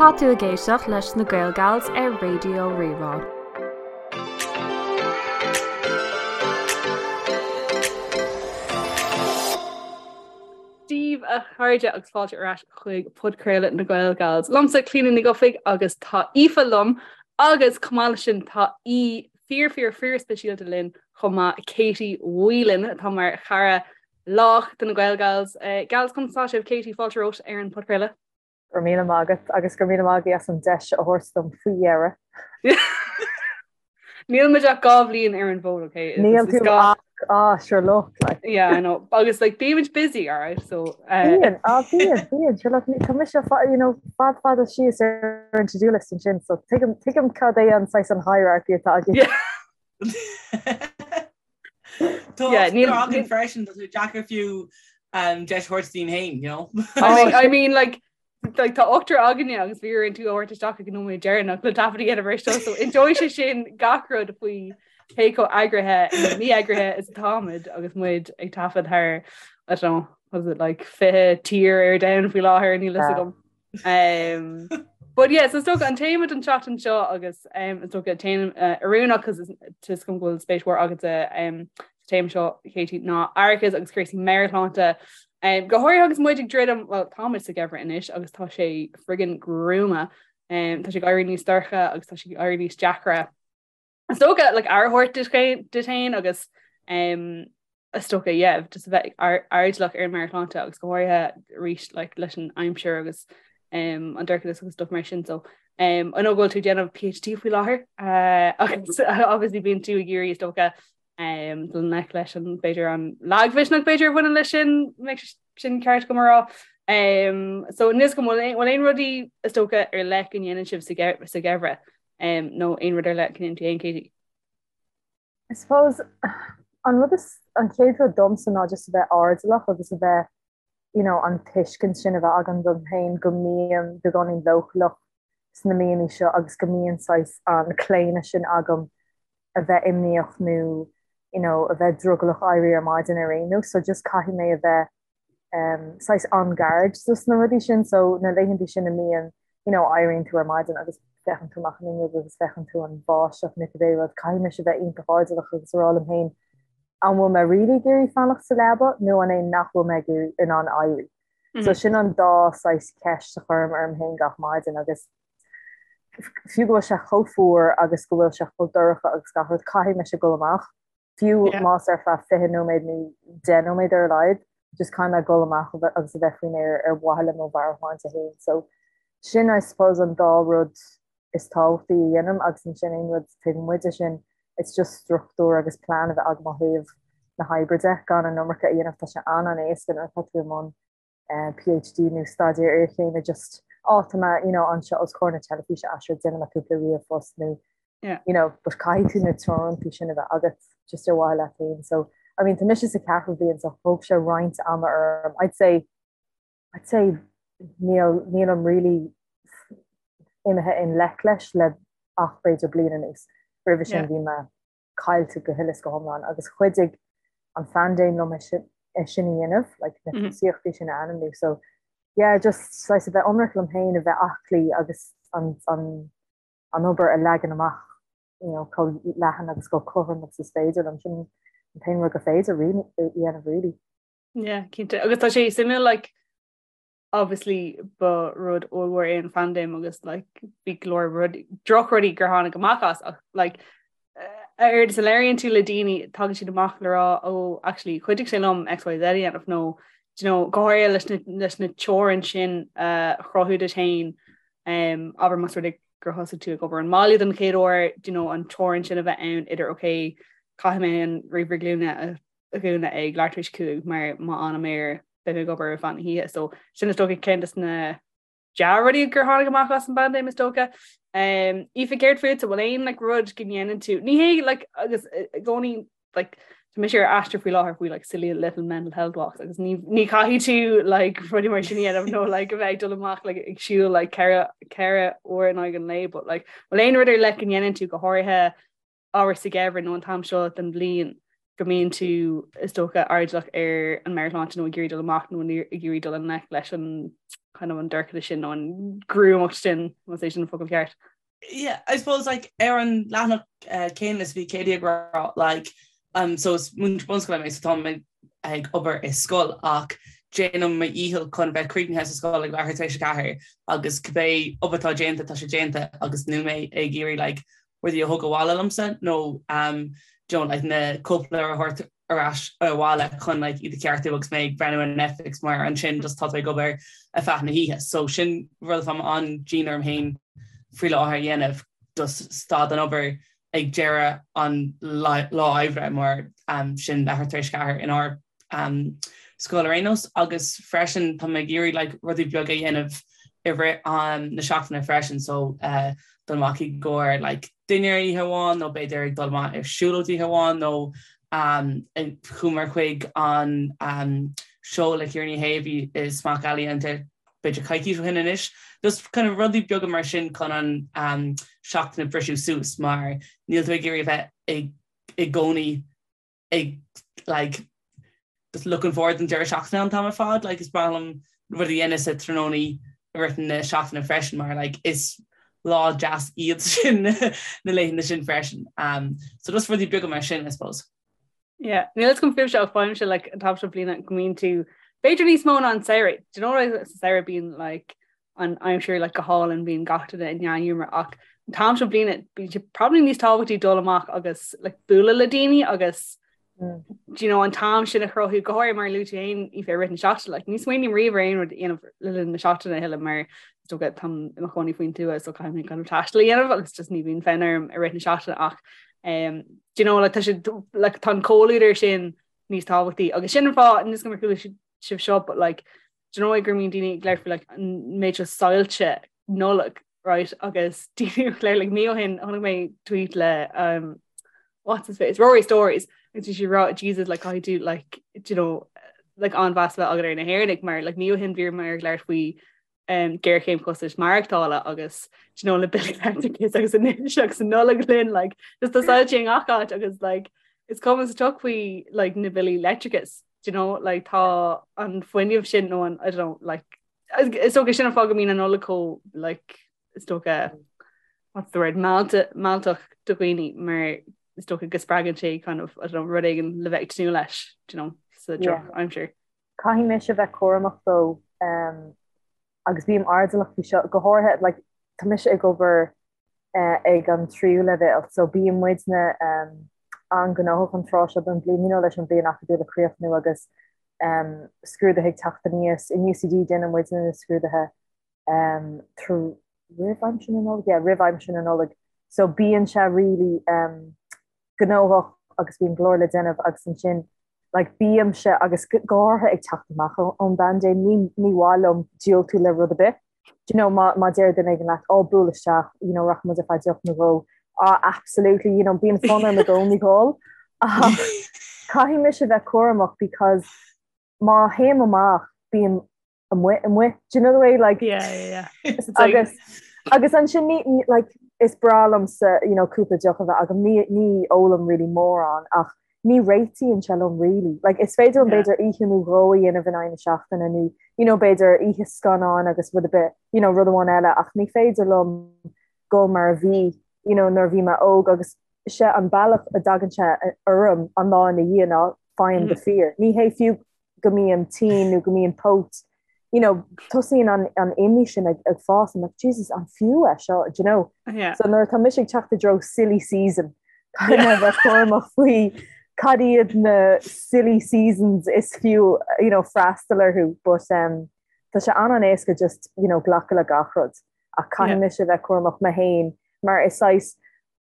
Tá tú ag éisteacht leis na Gaelgals ar Raidió Rí-Rá. Dia daoibh a chairde agus fáilte ar ais chuig podchraoladh na Gaelgals. Liomsa Clíona Ní Dhufaigh agus tá Aoife liom agus chomh maith leis sin tá aoi fíor fíor fíor speisialta linn chomh maith Katie Whelan atá mar chara lách de na Gaelgals. Gals conas tá sibh Katie fáilte romhat ar an podchraoladh. Go raibh míle maith agat agus go raibh míle maith agaibh as an deis a thabhairt dom faoi dheireadh. Níl muid ach 2 bhliain ar an bhfód, okay? Níl tú ach, ah, sure look, like. Yeah, I know. Agus like bímid busy, all right? So Bíonn, ah, bíonn, bíonn, sure look, tá mise you know, fad fada síos ar an to-do list ansin, so tuigim, tuigim cad é an saghas an hierarchy atá agaibh. Yeah. Tá Yeah, níl- againn freisin, tá sé deacair fiú um, deis a thabhairt dúinn féin, you know? I mean, I mean like like tá ochtar againne agus bhí orainn tú a thabhairt isteach ag an nóiméad deireanach le taifead a dhéanamh air seo so inseoidh sé sin gach rud faoi cé chomh eagraithe nó mí-eagraithe is atáimid agus muid ag taifead thar I don't know, was it like 20 tír ar domhan faoi láthair níl fhios agam. Um, but yeah, so is dócha an téama don tseachtain seo agus um, is dócha téama uh, oiriúnach cos tá fhios agam go bhfuil spéis mhór agat um, sa téama seo Katie ná aireachas agus cúrsaí meabhairshláinte. Um, go háirithe agus muid ag druidim, well táimid sa gheimhreadh anois agus tá sé friggin gruama. Um, tá sé ag éirí níos dorcha agus tá sé ag éirí níos deacra. Is dócha like, aire a thabhairt duit féin agus um, is dócha yeah, just a bheith airdeallach ar an meabhairshláinte agus go háirithe arís like, leis an aimsir agus um, an dorchadas agus stuff mar sin so um, I know go bhfuil tú ag déanamh PhD faoi láthair uh, agus obviously bíonn tú ag iarraidh is dócha um, dul i ngleic leis an b'fhéidir an lagmhisneach b'fhéidir a bhaineann leis sin sin ceart agam a rá. Um, so níl fhios agam bhfuil aon rudaí is dócha ar leith go ndéanann sibh sa gheimhreadh um, nó aon rud ar leith go ndéanann tú féin Katie? I suppose an rud is, an chéad rud domsa ná just a bheith airdeallach agus a bheith, you know, an tuiscint sin a bheith agam dom féin go mbím beagáinín leochaileach sna míonna seo agus go mbíonn saghas an claonadh sin agam a bheith imníoch nó, you know, a bheith drogallach éirí ar maidin ar aon nós. So just caithfidh mé a bheith saghas on guard dos na rudaí sin so na laethanta sin a mbíonn you know éiríonn tú ar maidin agus féachann tú amach an fhuinneog agus féachann tú an bháisteach nó cibé rud caithfidh mise bheith iontach airdeallach agus a rá liom féin an bhfuil mé really ag iarraidh fanacht sa leaba nó an é nach bhfuil mé ag iarraidh in ann éirí. So sin an dá saghas ceist a chuirim orm féin gach maidin agus fiú go bhfuil sé chomh fuar agus go bhfuil sé chomh dorcha agus gach rud caithfidh mise dul amach fiú más ar feadh 20 nóiméad nó 10 nóiméad ar a laghad, just caithfidh mé dul amach agus a bheith faoin aer ar mhaithe le mo mheabhairshláinte féin. So sin I suppose an dá rud is tábhachtaí a dhéanaim agus ansin aon rud taobh amuigh de sin it's just struchtúr agus plean a bheith agam ó thaobh na hoibre de, gan an iomarca a dhéanamh, tá sé an-an-éasca nuair atá tú i mbun PhD nó staidéar iarchéime just á tá mé you know anseo os comhair na teilifíse ah sure déanfaidh mé cúpla ríomhphost nó yeah. you know but caithfidh tú na teorantaí sin a bheith agat just ar mhaithe leat féin so I mean tá mise sa ceathrú bliain so thóg sé roinnt ama orm I'd say I'd say níl nílim really imithe i ngleic leis le ach b'fhéidir bliain anuas roimhe sin bhí mé caillte go huile is go hiomlán agus chuidigh an phaindéim liom é sin a dhéanamh, like na tosaíochtaí sin a ainmniú. So yeah, just saghas a bheith ionraic liom féin, a bheith aclaí agus an, an, an obair a leagan amach you know, chomh leathan agus chomh cothrom agus is féidir liom. Sin an t-aon rud gur féidir a dhéanamh really. Yeah, cinnte. Agus tá sé suimiúil like obviously ba rud ollmhór é an phaindéim agus like bhí go leor rud drochrudaí gur tháinig amach as ach like a oiread is a labhraíonn tú le daoine tagann siad amach le rá ó actually chuidigh sé liom XYZ a dhéanamh nó do you know go háirithe leis na leis na teorainn sin a chruthú duit féin um, abair más rud é gur thosaigh tú ag obair ón mbaile den chéad uair do you know an teorainn sin a bheith ann idir okay caithfidh mé an ríomhaire glúine a a dhúnadh ag leathuair tar éis 5 mar má fhanaim air beidh mé ag obair ar feadh na hoíche. So sin is dócha ceann des na dea-rudaí gur tháinig amach as an bpaindéim is dócha. Um, Aoife céard fútsa bhfuil aon like, rud go ndéanann tú ní hé like, agus i gcónaí like, tá mise ar aistear faoi láthair faoi like, silly little mental health walks agus ní, ní chaithfidh tú like, rudaí mar sin a dhéanamh nó like, a bheith ag dul amach like, ag siúl like, ceithre uair in aghaidh an lae but like, bhfuil aon rud ar leith go ndéanann tú go háirithe abair sa gheimhreadh nó an t-am seo den bhliain. go mbíonn tú is dócha airdeallach ar an meabhairshláinte nó ag iarraidh dul amach nó ag iarraidh dul i ngleic leis an kind of an dorchadas sin nó an ghruamacht sin más é sin an focal ceart. Yeah, I suppose like ar an leathanach uh, céanna is bhí Katie ag rá like um, so is múinteoir bunscoile mé so tá mé ag obair i scoil ach déanaim mo dhícheall chun bheith críochnaithe sa scoil ag leathuair tar éis a 4 agus cibé obair atá déanta tá sé déanta agus níl mé ag iarraidh like rudaí a thug abhaile liomsa nó um, do you know, like na cóipleabhair a thabhairt ar ais abhaile chun like iad a cheartú agus mé ag breathnú ar Netflix mar ansin just tá tú ag obair ar feadh na hoíche. So sin rud atá an-dian orm féin faoi láthair a dhéanamh just stad den obair ag deireadh an lá oibre mar um, sin leathuair tar éis a 4 inár um, scoil ar aon nós agus freisin tá mé ag iarraidh like, rudaí beaga a dhéanamh i rith um, na seachtaine freisin so uh, dul amach i gcomhair like, dinnéar oíche amháin nó b'fhéidir ag dul amach ar siúlóid oíche amháin nó um, chuamar chuig an um, seó le Ciara Ní hÉ a bhí i Smock Alley an b'fhéidir coicís ó shin anois. Just kind of rudaí beaga mar sin chun an um, seachtain a briseadh suas mar níl tú ag iarraidh a bheith i gcónaí ag like just looking forward don deireadh seachtaine an t-am ar fad like is breá liom rudaí a dhéanamh sa tráthnóna i rith na seachtaine freisin mar like is lá deas iad sin na laethanta sin freisin. Um, so just rudaí beaga mar sin I suppose. Yeah, níl a fhios agam fúibhse ach faighimse like an t-am seo bliana go mbíonn tú b'fhéidir níos mó ná an samhradh. Do you know what sa samhradh bíonn like an aimsir like go hálainn bíonn gach duine i ndea-ghiúmar ach an t-am seo bliana bíonn sé probably níos tábhachtaí dul amach agus like bualadh le daoine agus mm. do you know an t-am sin a chruthú go háirithe mar a luaigh tú féin i rith na seachtaine like ní smaoiním riamh ar aon rud a dhéanamh le linn na seachtaine a thuilleadh mar is dócha táim i mo chónaí faoin tuath so caithfidh mé kind of taisteal a dhéanamh agus just ní bhíonn fonn orm i rith na seachtaine ach um, do you know like tá sé like tá an comhluadar sin níos tábhachtaí agus sin an fáth níl a fhios agam ar chuala sibh seo but like do you know go mbíonn daoine ag labhairt faoi like an méid seo soilse Nollag right agus daoine ag labhairt like mí ó shin chonaic mé tweet le um, what's his face Rory Stories agus bhí sé ag rá Jesus like caithfidh tú like do you know like an-mheas a bheith agat ar na hÉireannaigh mar like mí ó shin bhíomar ag labhairt faoi um, géarchéim costais maireachtála agus do you know na billí leictreachais agus anois agus an Nollaig linn like just tá soilse i ngach áit agus like is cuma sa tsioc faoi like na billí leictreachais do you know like tá an fuinneamh sin nó an I don't know like is dócha sin an fáth go mbíonn an Nollaig chomh like is dócha what's the word mealltach do dhaoine mar is dócha go spreagann sé kind of I don't know rud éigin le bheith ag tnúth leis do you know sa drochaimsir. Caithfidh mise bheith cúramach though um, agus bím airdeallach faoi seo go háirithe like tá mise ag obair ag an tríú leibhéal so bíonn muidne an-ghnóthach an tráth seo den bhliain, you know, leis an bhliain acadúil ag críochnú agus scrúduithe ag teacht aníos. In UCD déanann muidne na scrúduithe roimh aimsir na Nollag, yeah, roimh aimsir na Nollag. So bíonn sé really gnóthach agus bíonn go leor le déanamh agus ansin like bímse agus go háirithe ag teacht amach ón bpaindéim ní ní mhaith liom diúltú le rud ar bith. Do you know má má deir duine éigin leat ó buail isteach you know rachaidh muid ar feadh deoch nó dhó ah absolutely you know bíonn fonn orm i gcónaí dhul ach caithfidh mise bheith cúramach because má théim amach bím amuigh amuigh do you know the way like yeah yeah yeah agus agus ansin ní like is breá liomsa you know cúpla deoch a bheith agam ní ní ólaim really mórán ach ní réitíonn sé liom really like is féidir liom b'fhéidir oíche nó dhó a dhéanamh in aghaidh na seachtaine nó you know b'fhéidir oíche scannáin agus rud ar bith you know rud amháin eile ach ní féidir liom dul mar a bhí you know nuair a bhí mé óg agus sé an bealach a dtagann sé orm an lá ina dhiaidh ná faighim the fear ní hé fiú go mbím tinn nó go mbím póit, you know, tosaíonn an, an imní sin ag, ag fás, I'm like, Jesus, an fiú é seo, do you know? Yeah. So nuair atá mise ag teacht i dtreo silly season, caithfidh mé bheith cúramach faoi cad iad na silly seasons is fiú, you know, freastal orthu, but um, tá sé an-an-éasca just, you know, glacadh le gach rud. Ach caithfidh Yeah. mise bheith cúramach mé féin, mar is saghas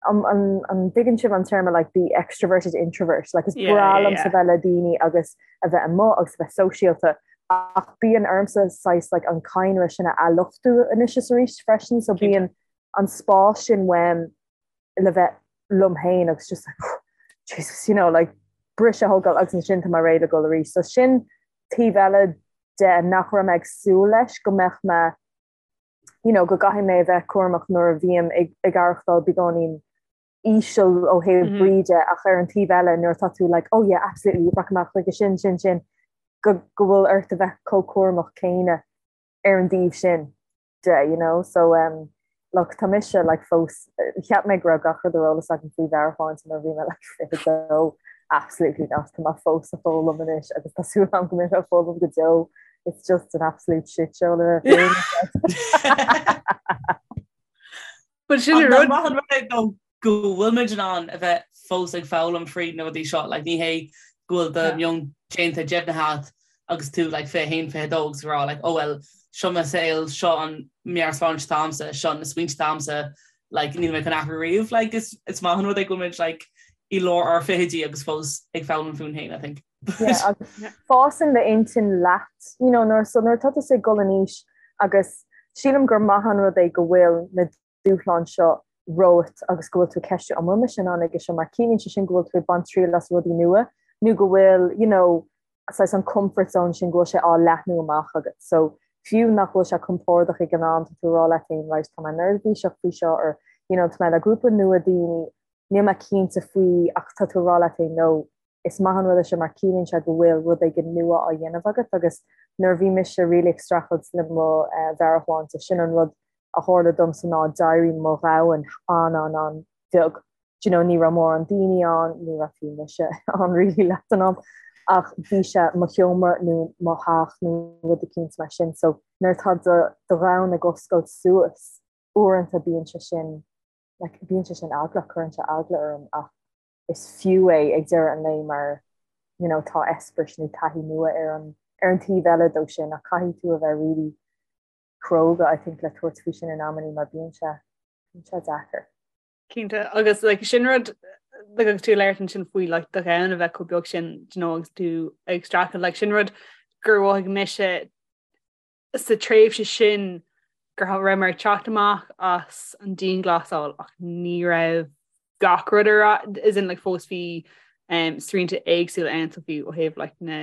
An dtuigeann sibh an téarma like the extroverted introvert? Like is breá liomsa bheith le daoine agus a bheith amuigh agus a bheith sóisialta ach bíonn ormsa saghas like an cadhnra sin a athluchtú anois is arís freisin so bíonn an spás sin uaim le bheith liom féin agus just like Jesus you know like briseadh a thógáil agus ansin tá mé réidh le dul arís. So sin taobh eile de nach raibh mé ag súil leis go mbeadh mé you know, go gcaithfidh mé a bheith cúramach nuair a bhím ag ag aireachtáil beagáinín íseal ó thaobh brí de ach ar an taobh eile nuair atá tú like oh yeah absolutely rachaidh mé chuige sin sin sin go go bhfuil ort a bheith chomh cúramach céanna ar an dtaobh sin de you know so um look tá mise like fós cheap mé go raibh gach rud ar eolas agam faoi mheabhairshláinte nuair a bhí mé like 22 absolutely not tá mé fós ag foghlaim anois agus tá súil agam go mbeidh mé ag foghlaim go deo it's just an absolute shit show le bheith But sin an rud. Maith an rud é though go bhfuil muid in ann a bheith fós ag foghlaim fríd na rudaí seo, like ní hé go bhfuil do meon déanta deimhnithe agat agus tú like 21, 22 agus ag rá like oh well seo mo saol, seo an meabhairshláinte atá agamsa, seo na smaointe atá agamsa, like níl mé chun athrú riamh, like is is maith an rud é go bhfuil muid like i lár ár fichidí agus fós ag foghlaim fúinn féin I think. Yeah, agus fásann d'intinn leat, you know, nuair so nuair atá tusa ag dul in aois agus sílim gur maith an rud é go bhfuil na dúshláin seo romhat agus go bhfuil tú ag ceistiú an bhfuil mise in ann aige seo mar ciallaíonn sé sin go bhfuil tú ag baint triail as rudaí nua nó go bhfuil, you know, saghas an comfort zone sin go bhfuil sé á leathnú amach agat. So fiú nach bhfuil sé compordach ag an am tá tú ag rá leat féin right tá mé neirbhíseach faoi seo or you know tá mé le grúpa nua daoine níl mé cinnte faoi ach tá tú ag rá leat féin no is maith an rud é seo mar ciallaíonn sé go bhfuil rud éigin nua á dhéanamh agat agus nuair a bhí mise really ag streachailt le mo mheabhairshláinte, sin an rud a tharla domsa ná d'éirigh mo dhomhan an-an-an-bheag. Do you know, ní raibh mórán daoine ann, ní raibh fiú mise ann really leath den am, ach bhí sé mo sheomra nó mo theach nó rud eicínt mar sin. So nuair atá do dhomhan ag oscailt suas, uaireanta bíonn sé sin, like, bíonn sé sin eaglach, cuireann sé eagla orm ach is fiú é ag deireadh an lae mar you know tá eispéireas nó taithí nua ar an ar an taobh eile dó sin ach caithfidh tú a bheith really cróga I think le tabhairt faoi sin in amannaí mar bíonn sé bíonn sé deacair. Cinnte agus like sin rud like agus tú ag labhairt ansin faoi like do dhomhan a bheith chomh beag sin do you know agus tú ag streachailt like sin rud gur mhothaigh mise sa tréimhse sin go raibh mé ag teacht amach as an dianghlasáil ach ní raibh gach rud ar as in like fós bhí um, srianta éagsúla ann so bhí ó thaobh like na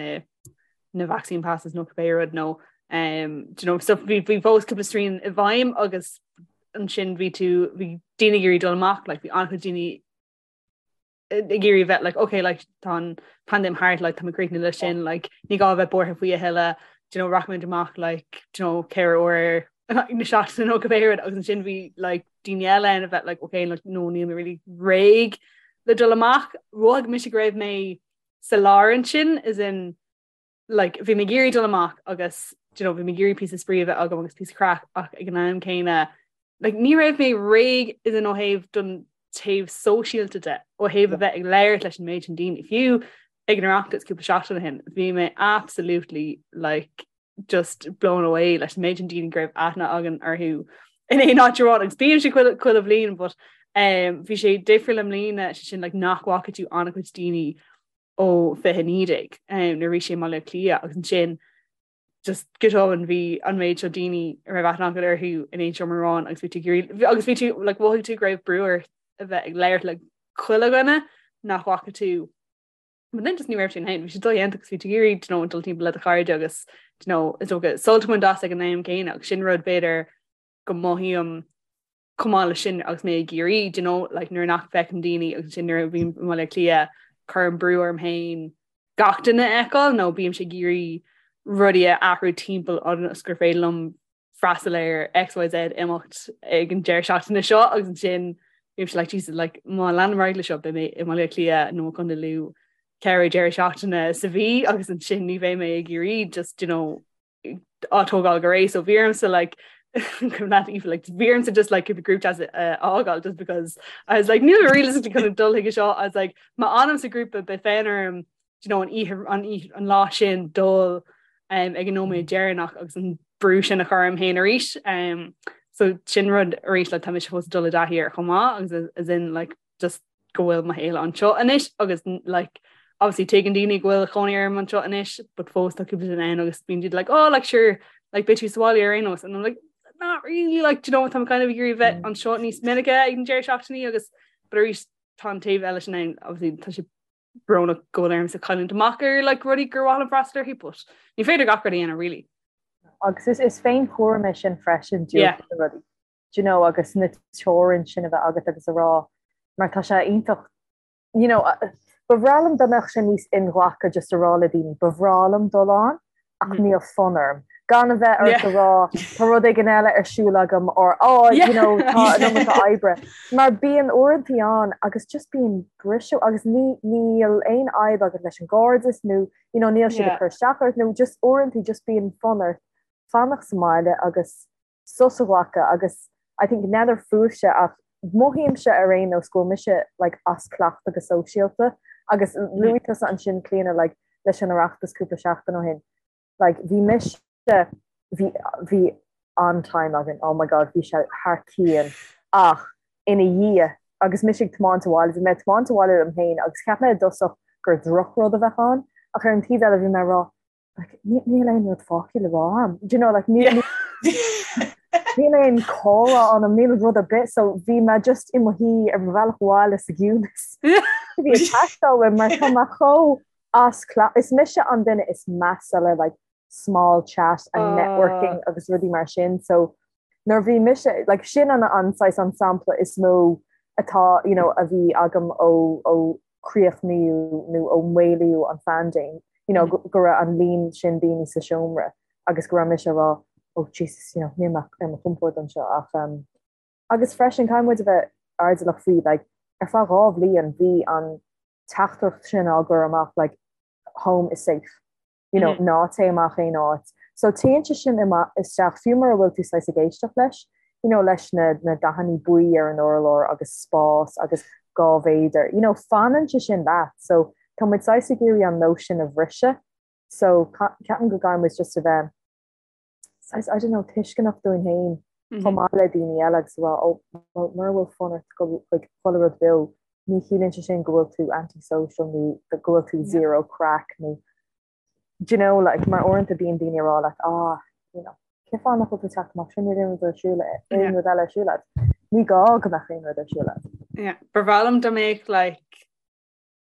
na vaccine passes nó cibé rud nó um, do you know, so bhí bhí fós cúpla srian i bhfeidhm agus ansin bhí tú bhí daoine ag iarraidh dul amach like bhí an-chuid daoine ag iarraidh bheith like okay like tá an paindéim thart like tá muid críochnaithe leis sin like ní gá bheith buartha faoi a thuilleadh do you know rachaimid amach like do you know ceithre uair na seachtaine nó cibé rud agus ansin bhí like daoine eile ann a bheith like okay like no níl mé really réidh le dul amach mhothaigh mise go raibh mé sa lár ansin as in like bhí mé ag iarraidh dul amach agus do you know bhí mé ag iarraidh píosa spraoi a bheith agam agus píosa craic ach ag an am céanna like ní raibh mé réidh as in ó thaobh don taobh sóisialta de ó thaobh a bheith ag labhairt leis an méid sin daoine fiú ag an Oireachtas cúpla seachtain ó shin bhí mé absolutely like just blown away leis an méid sin daoine go raibh aithne againn orthu in aon áit amháin agus bíonn sé chuile chuile bhliain but um, bhí sé difriúil i mbliana sé sin like nach bhfaca tú an-chuid daoine ó 2019 nuair a bhí sé i mBaile Átha Cliath agus ansin just go tobann bhí an méid seo daoine a raibh aithne agat orthu in aon seomra amháin agus bhí tú ag iarraidh agus bhí tú like mhothaigh tú go raibh brú ort a bheith ag labhairt le chuile dhuine nach bhfaca tú But then just ní raibh sin ann bhí sé dodhéanta agus bhí tú ag iarraidh you know, dul timpeall le do chairde agus you know, is dócha sult a bhaint as ag an am céanna agus sin rud b'fhéidir go mothaím chomh maith leis sin agus mé i gCiarraí, do you know, like nuair nach bhfeicim daoine agus sin nuair a bhím i mBaile Átha Cliath cuirim brú orm féin gach duine a fheiceáil nó bímse ag iarraidh rudaí a athrú timpeall ionas gur féidir liom freastal ar XYZ imeacht ag an deireadh seachtaine seo agus ansin bímse like Jesus like má leanaim ar aghaidh leis seo beidh mé i mBaile Átha Cliath nó i gContae Lú ceithre deireadh seachtaine sa mhí agus ansin ní bheidh mé i gCiarraí just you know á tógáil go réidh so bhí ormsa like not even like bhí ormsa just like keep a group chat uh, fhágáil just because I was like níl mé realistically chun dul chuige seo I was like má fhanaim sa grúpa beidh fonn orm you know an oíche an oíche an lá sin dul um, ag an nóiméad deireanach agus an brú sin a chur orm féin arís um, so sin rud arís like tá mise fós ag dul i dtaithí air chomh maith agus as in like just go bhfuil mo shaol anseo anois agus like obviously tuigeann daoine go bhfuil cónaí orm anseo anois but fós tá cúpla duine ann agus bíonn siad like oh like sure like beidh tú sa bhaile ar aon nós and I'm like not really like do you know tá kind of ag iarraidh bheith mm. anseo níos minice ag an deireadh seachtainí agus but arís tá an taobh eile sin ann obviously tá sé brónach go bhfuil ormsa cailliúint amach ar like rudaí gur mhaith liom freastal orthu but ní féidir gach rud a dhéanamh really. Agus is is féinchúram é sin freisin yeah. rudaí. Do you know agus na teorainn sin a bheith agat agus a rá. Mar tá sé iontach you know, ba bhreá liom dá mbeadh sé níos inghlactha just a rá le daoine, ba bhreá liom dul ann ach mm. níl fonn orm. Gan a bheith ort a rá tá rud éigin eile ar siúl agam or oh, you know, tá an iomarca oibre. Mar bíonn uaireantaí ann agus just bíonn briseadh agus ní níl aon fhadhb agat leis an gcairdeas nó you know, níl siad ag cur isteach ort nó just uaireantaí just bíonn fonn ort fanacht sa mbaile agus sos a ghlacadh agus I think n'fheadar fúibhse ach mothaímse ar aon nós go bhfuil mise like as cleachtadh go sóisialta agus luaigh tusa ansin Clíona like leis an Oireachtas cúpla seachtain ó shin like bhí mise bhí bhí an-time againn oh my god bhí sé thar cionn ach ina dhiaidh agus mise ag tiomáint abhaile bhí mé ag tiomáint abhaile liom féin agus cheap mé i dtosach gur drochrud a bheadh ann ach ar an taobh eile bhí mé ag rá like, níl aon rud fágtha le rá agam. Do you know, like, níl níl aon comhrá ann, níl rud ar bith, so bhí mé just i mo shuí ar mo bhealach abhaile sa gciúnas. Bhí ag teastáil uaim mar tá mé chomh as cleachtadh. Is mise an duine is measa le like, small chat and uh. networking agus rudaí mar sin, so nuair bhí mise, like, sin an an saghas an sampla is mó atá, you know, a bhí agam ó, ó críochnaíodh nó ó maolaíodh an phaindéim, you know, go raibh an líon sin daoine sa seomra agus go raibh mise ag rá oh Jesus, you know, níl mé ar mo chompord anseo ach um, agus freisin caithfidh muid a bheith airdeallach faoi like, ar feadh 2 bhliain bhí an teachtaireacht sin á gcur amach like, home is safe. you know, ná téigh amach aon áit. So téann sé sin isteach fiú mura bhfuil tú saghas ag éisteacht leis, you know, leis na, na dathanna buí ar an urlár agus spás agus 2 mhéadar, you know, fanann sé sin leat. So tá muid saghas ag iarraidh an nós sin a bhriseadh. So ceapaim go gcaithfidh muid just a bheith saghas, I don't know, tuisceanach dúinn féin chomh maith le daoine eile agus a rá, oh, well, mura bhfuil fonn ort dul chuig chuile rud beo, ní chiallaíonn sé sin go bhfuil tú anti-social nó go bhfuil tú zero craic nó do you know, like, mar uaireanta bíonn daoine ag rá leat, ah, you know, cén fáth nach bhfuil tú ag teacht amach sin níl aon rud ar siúl aon rud eile ar siúl agat. Ní gá go mbeadh aon rud ar siúl agat. Yeah, ba bhreá liom dá mbeadh like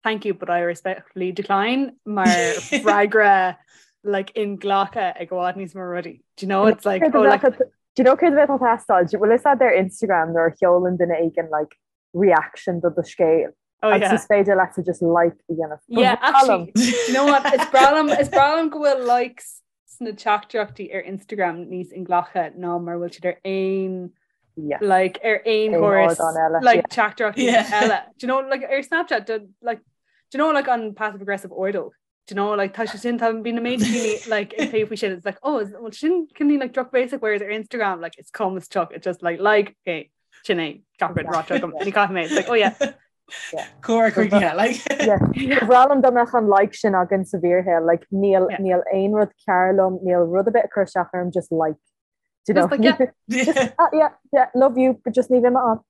Thank you, but I respectfully decline mar freagra like inghlactha ag i bhfad níos mó rudaí. Do you know it's like oh like Do you know céard a bheadh ag teastáil? Bhfuil fhios agat ar Instagram nuair a sheolann duine éigin like reaction do do scéal? Oh, yeah. Agus is féidir leat just like a dhéanamh. Yeah, actually, do you know what? Is breá liom is breá liom go bhfuil likes sna teachtaireachtaí ar Instagram níos inghlactha ná mar bhfuil siad ar aon Yes. like ar aon Aon chóras ardán eile, like yeah. teachtaireachtaí Yeah. eile. Do you know like ar Snapchat do, like do you know like an passive aggressive ordóg? Do you know like tá sé sin tá bíonn an méid daoine like ag plé faoi sin it's like oh is, well sin cineál like drochbhéasach whereas ar Instagram like it's calm as chuck it's just like like okay sin é gach rud ráite agam ní caithfidh mé it's like oh yeah Cóir chuige like. Ba bhreá liom dá mbeadh an like sin againn sa bhfíorshaol, like níl Yeah. níl aon rud cearr liom, níl rud ar bith ag cur isteach orm, just like. Do you know? Just like, yeah. Just, ah, yeah, yeah, love you, but just ní bheidh mé ann.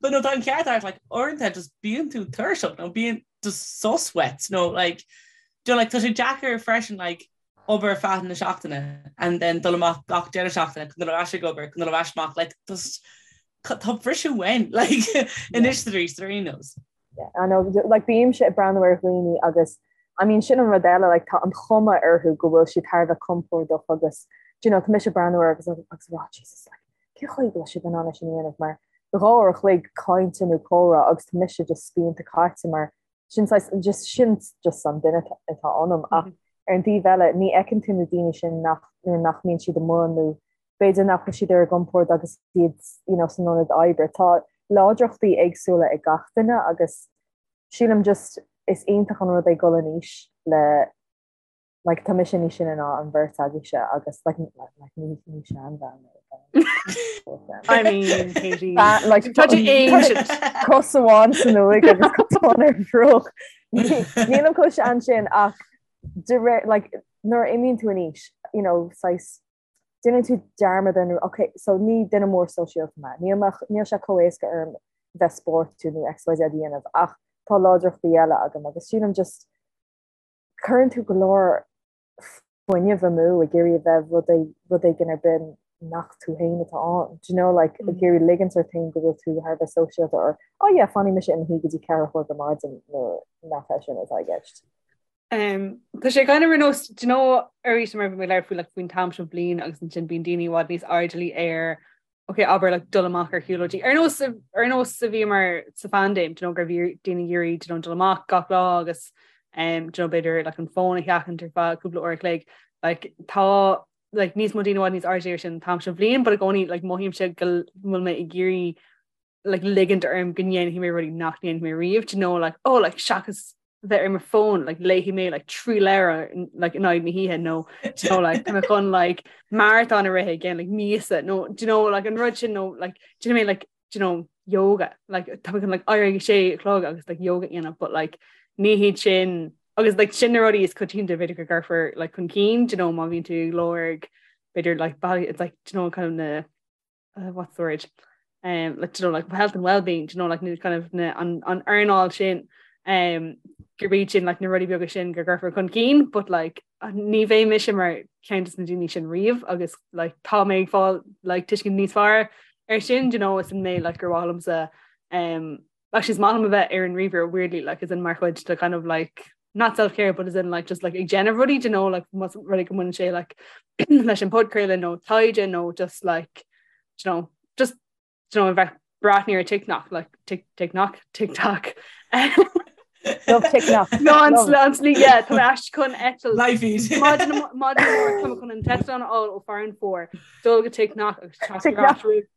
But no tá an ceart agat like uaireanta just bíonn tú tuirseach nó bíonn just sos uait nó like do you know, like tá sé deacair freisin like obair ar feadh na seachtaine and then dul amach gach deireadh seachtaine chun dul ar ais ag obair chun dul ar ais amach like just tá briseadh uainn like anois arís ar aon nós. Yeah, I know, like bímse ag breathnú ar dhaoine agus I mean sin an rud eile like tá an chuma orthu go bhfuil siad thar a bheith compordach agus do you know tá mise ag breathnú orthu agus agus ag rá Jesus like cén chaoi go bhfuil siad in ann é sin a dhéanamh mar 2 uair a chloig cainte nó comhrá agus tá mise just spíonta caite mar sin saghas just sin just an duine atá ionam ach ar an taobh eile ní fheiceann tú na daoine sin nach nuair nach mbíonn siad amuigh nó b'fhéidir nach bhfuil siad ar a gcompord agus iad you know san ionad oibre. Tá láidreachtaí éagsúla ag gach duine agus sílim just is iontach an rud é dul in aois le like tá mise níos sine ná an bheirt agaibhse agus like like ní ní seanbhean mé. I mean, Katie. Like Tá tú ancient. Cos amháin san uaigh agus cos amháin ar an bhfraoch. Nílim chomh sean sin ach de réir like nuair a imíonn tú in aois, you know, saghas déanann tú dearmad ar ok, so ní duine mór sóisialta mé, níl mé níl sé chomh éasca orm bheith spórtúil nó XYZ a dhéanamh ach tá láidreachtaí eile agam agus sílim just cuireann tú go leor fuinnimh amú ag iarraidh a bheith rud rud éigin ar bith nach tú féin atá ann. Do you know, like, ag iarraidh ligint ort féin go bhfuil tú thar a bheith sóisialta or oh yeah, fanfaidh mise i mo shuí go dtí 4 a chlog ar maidin nuair nach é sin atá i gceist. Um, tá sé kind of ar nós, do you know, arís mar bhí mé ag labhairt faoi like, faoin t-am seo bliain agus ansin bíonn daoine i bhfad níos airdeallaí ar. Ok, abair like dul amach ar shiúlóidí. Ar nós ar nós a bhíomar sa phaindéim, do you know, go raibh daoine ag iarraidh do you know, dul amach gach lá agus um, do you know, b'fhéidir like, an fón a sheachaint ar feadh cúpla uair a chloig. Like, tá like, níos mó daoine i bhfad níos airde ar sin an t-am seo bhliain, but i gcónaí like, mothaímse go bhfuil mé ag iarraidh like, ligint orm go ndéanfaidh mé rudaí nach ndéanfaidh mé riamh, do you know, like, oh, like, seachas bheith ar mo fón like, léifidh mé like, 3 leabhar like, in aghaidh na hoíche nó do you know, like, tá mé chun like, maratón a rith i gceann like, míosa nó do you know, like, an rud sin nó like, do you know, like, do you know, yoga like, tá mé chun like, éirí ag sé a chlog agus like, yoga a dhéanamh but like, ní hiad sin agus like, sin na rudaí is coitianta b'fhéidir go gcuirfear like, chun cinn do you know, má bhíonn tú ag lorg b'fhéidir like, bealaí it's like, do you know, kind of na uh, what's the word um, like, you know, like health and well-being you know, like, kind of na, an, an earnáil sin um, gurb iad sin like, na rudaí beaga sin go gcuirfear chun cinn, but like, ní bheidh mise mar ceann de na daoine sin riamh agus like, tá mé ag fáil like, tuiscint níos fearr ar sin you know, is an mé like, gur mhaith liomsa um, actually is maith liom a bheith ar an ríomhaire weirdly like, as in mar chuid de kind of like not self-care but as in like just like ag déanamh rudaí you know like más rud é go mbaineann sé like leis an podchraoladh nó taighde nó just like you know just you know bheith breathnú ar TikTok like tik TikTok TikTok Love TikTok. No an an slí yeah tá mé ais chun eitilt Live feed. Maidin maidin amárach tá mé chun an t-eitleán a fháil ó Farranfore dul go TikTok agus teacht ar ais roimh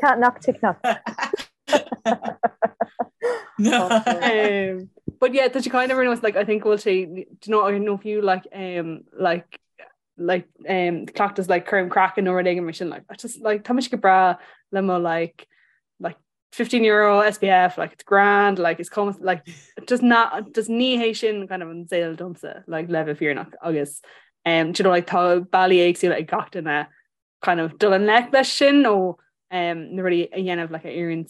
Can't knock TikTok. No. Um, but yeah, tá sé kind of ar nós like I think bhfuil sé do you know I know fiú like um like like um cleachtas like cúram craicinn nó rud éigin mar sin like I just like tá mise go breá le mo like like 15 euro SPF like it's grand like it's cuma like just not just ní hé sin kind of an saol domsa like le bheith fírinneach agus um do you know like tá bealaí éagsúla ag gach duine kind of dul i ngleic leis sin nó um, na rudaí a dhéanamh like, a oireann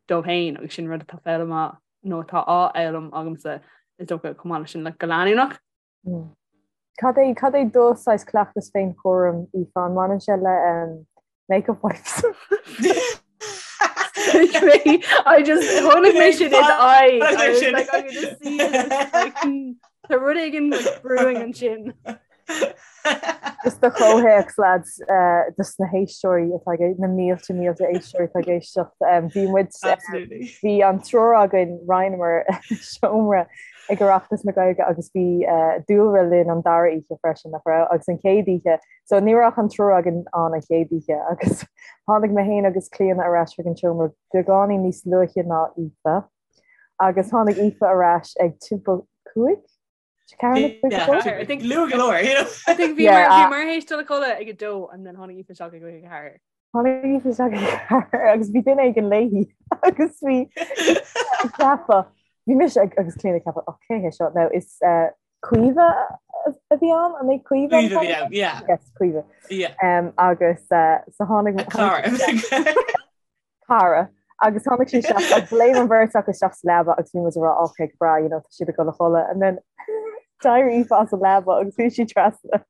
dóibh féin agus sin rud atá foghlamtha nó atá á fhoghlaim agamsa is dócha chomh maith leis sin like, go leanúnach. Mm. Cad é cad é do saghas cleachtas féinchúraim Aoife an mbaineann sé le um, makeup wipes? I just chonaic mé sin in eye I was like I could just see it like, hmm, tá rud éigin like, brewing ansin. Just do chomhthéacs lads eh, dos na héisteoirí atá ag na mílte mílte éisteoirí atá ag éisteacht em, bhí muid eh, Absolutely. bhí an triúr againn roinneamar seomra ag Oireachtas na Gaeilge agus bhí eh, Dúlra linn an dara oíche freisin nach raibh agus an chéad oíche so ní raibh ach an triúr againn ann an chéad oíche agus tháinig mé féin agus Clíona ar ais chuig an seomra beagáinín níos luaithe ná Aoife agus tháinig Aoife ar ais ag timpeall 5 I think Luath go leor, you know. I think bhí Yeah, mar bhí uh, mar théis dul a chodladh ag a dó and then tháinig Aoife isteach ag a ceathair. Tháinig Aoife isteach ag a ceathair agus bhí duine éigin léi agus bhí ag ceapadh bhí mise ag agus Clíona ag ceapadh oh cé hé seo now is uh, Caoimhe a bhí ann an é Caoimhe an Caoimhe a bhí t-ainm? ann, yeah. Yes, Caoimhe. Yeah. Um, agus uh, so tháinig A cara. cara agus tháinig sí isteach agus léim an bheirt acu isteach sa leaba agus bhí muid ag rá ok go breá you know tá siad ag dul a chodladh and then d'éirigh Aoife as an leaba agus bhí sí trasna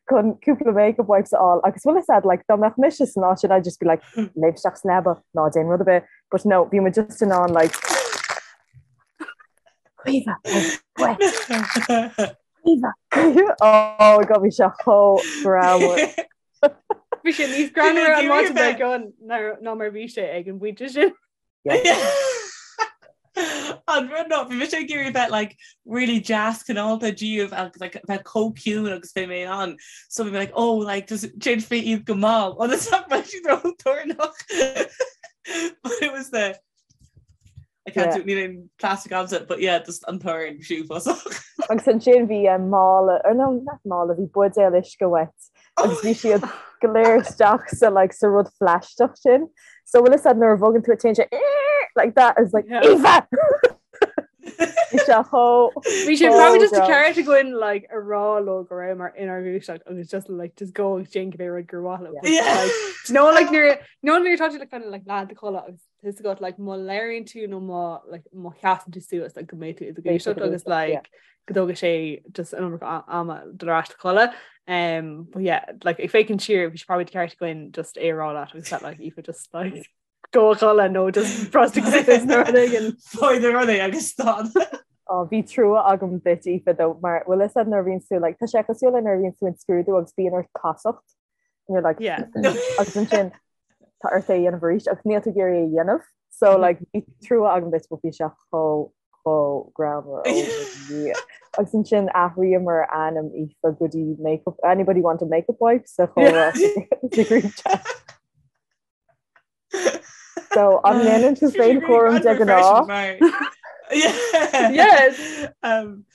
chun cúpla makeup wipes a fháil agus bhfuil fhios a'd like dá mbeadh mise san áit sin I'd just be like léim isteach sa leaba ná déan rud ar bith but no bhí muid just in ann like Caoimhe oh, wet Caoimhe oh my god bhí sé chomh greannmhar Bhí sé níos greannmhaire an maidin dár gcionn ná mar bhí sé ag an bpointe sin. An rud ná bhí mise ag iarraidh bheith like really deas cineálta díobh agus like bheith chomh ciúin agus bhí mé in ann. So bhí mé like oh like just déanfaidh mé iad go mall ionas nach mbeidh siad ró-toranach. But it was the I can't do níl aon plastic agamsa but yeah just an torann uafásach. Agus ansin bhí eh, mála or no not mála bhí buidéal uisce uait agus bhí siad go léir isteach sa like sa rud phlaisteach sin. So bhfuil fhios a'd nuair a bhogann tú téann sé like that is like Yeah. Aoife! Bhí sé chomh Bhí sé probably just greannmhar. ceart againn like a rá leo go rabhamar inár ngluaiseacht agus just like just go agus déan cibé rud gur mhaith leo. But, Yeah. like, do you know like nuair no nuair atá tú like kind of like leath i do chodladh agus Tá fhios agat like má labhraíonn tú nó má like má sheasann tú suas like go mbeidh tú i do ghluaiseacht agus like go dtógfaidh sé just an iomarca ama dul ar ais a chodladh. Um, but yeah, like ag féachaint siar bhí sé probably ceart againn just é a rá leat agus that like Aoife just like go a chodladh nó just brostaigh suas nó rud éigin. Faigh na rudaí agus stad. Oh, bhí trua agam duit Aoife though mar bhfuil fhios a'd nuair a bhíonn tú like tá sé cosúil le nuair a bhíonn tú in scrúdú agus bíonn ort casacht. And you're like, yeah. agus ansin tá ort é a dhéanamh arís agus níl tú ag iarraidh é a dhéanamh. So like bhí trua agam duit but bhí sé chomh chomh greannmhar ó Dhia. Agus ansin athraíomar ainm Aoife go dtí makeup anybody want a makeup wipe sa chomhrá sa group chat. So an ndéanann tú féinchúram de ghnáth? Yes. Um,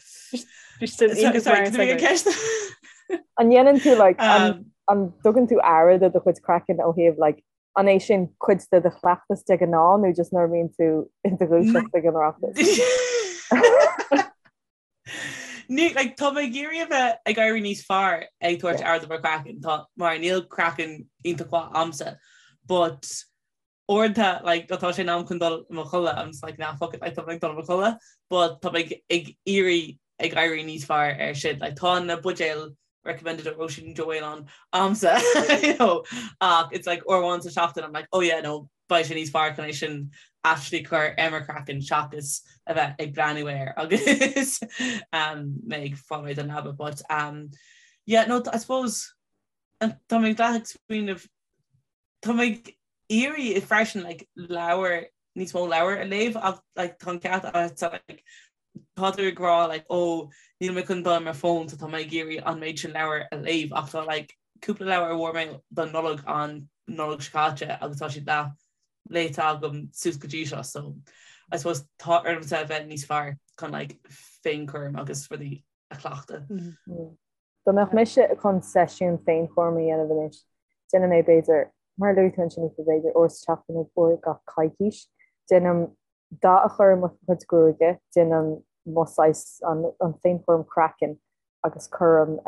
An ndéanann tú like an an dtugann tú aire do do chuid craicinn ó thaobh like an é sin cuid de do chleachtas de ghnáth nó just nuair a bhíonn tú i do dhúiseacht ag an Oireachtas? Ní, like, tá mé ag iarraidh a bheith ag éirí níos fearr ag tabhairt aire do mo chraiceann, tá, mar níl craiceann iontach mhaith a'msa, but uaireanta, like, tá sé in am chun dul i mo chodladh, I'm just like, nah, fuck it, like, tá mé ag dul i mo chodladh, but tá mé ag, ag iarraidh ag éirí níos fearr ar sin, like, tá na buidéil recommended ó Róisín Joe Whelan a'msa, you know, ach it's like uair amháin sa seachtain, I'm like, oh yeah, no, beidh sé níos fearr chun é sin actually cur ar mo chraiceann seachas a bheith ag breathnú air agus um, mé ag fáil réidh don leaba. But um, yeah, no, I suppose tá mé ag smaoineamh tá mé ag iarraidh freisin like, leabhar níos mó leabhar a léamh ach like, tá an ceart agat like, tá tú ag rá like oh níl mé chun dul ar mo fón so tá mé ag iarraidh an méid sin leabhar a léamh ach tá like cúpla leabhar a bhfuair mé don Nollaig an Nollaig seo caite agus tá siad leath léite agam suas go dtí seo so I suppose tá ormsa a bheith níos fearr chun like féinchúram agus rudaí a chleachtadh. Dá mbeadh mise chun seisiún féinchúraim a dhéanamh anois, déanfaidh mé b'fhéidir, mar a luaigh tú ansin Aoife, b'fhéidir uair sa tseachtain nó uair gach coicís. Déanaim dath a chur ar mo chuid gruaige, déanaim mo saghas an féinchúram craicinn agus cuirim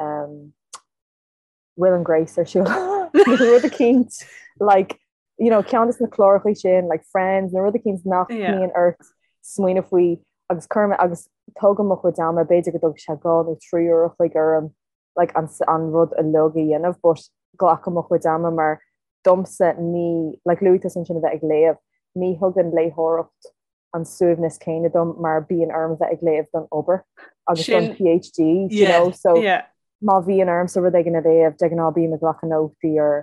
Will and Grace ar siúl nó rud eicínt like you know ceann de na cláracha sin like Friends nó rud eicínt nach mbíonn ort smaoineamh faoi agus cuirim agus tógaim mo chuid ama b'fhéidir go dtógfaidh sé 2 nó 3 uair a chloig orm like an an rud uilig a dhéanamh but glacaim mo chuid ama mar domsa ní like luaigh tusa ansin a bheith ag léamh ní thugann léitheoireacht an suaimhneas céanna dom mar bíonn orm a bheith ag léamh don obair agus don PhD you know so má bhíonn ormsa rud éigin a léamh de ghnáth bím ag glacadh nótaí ar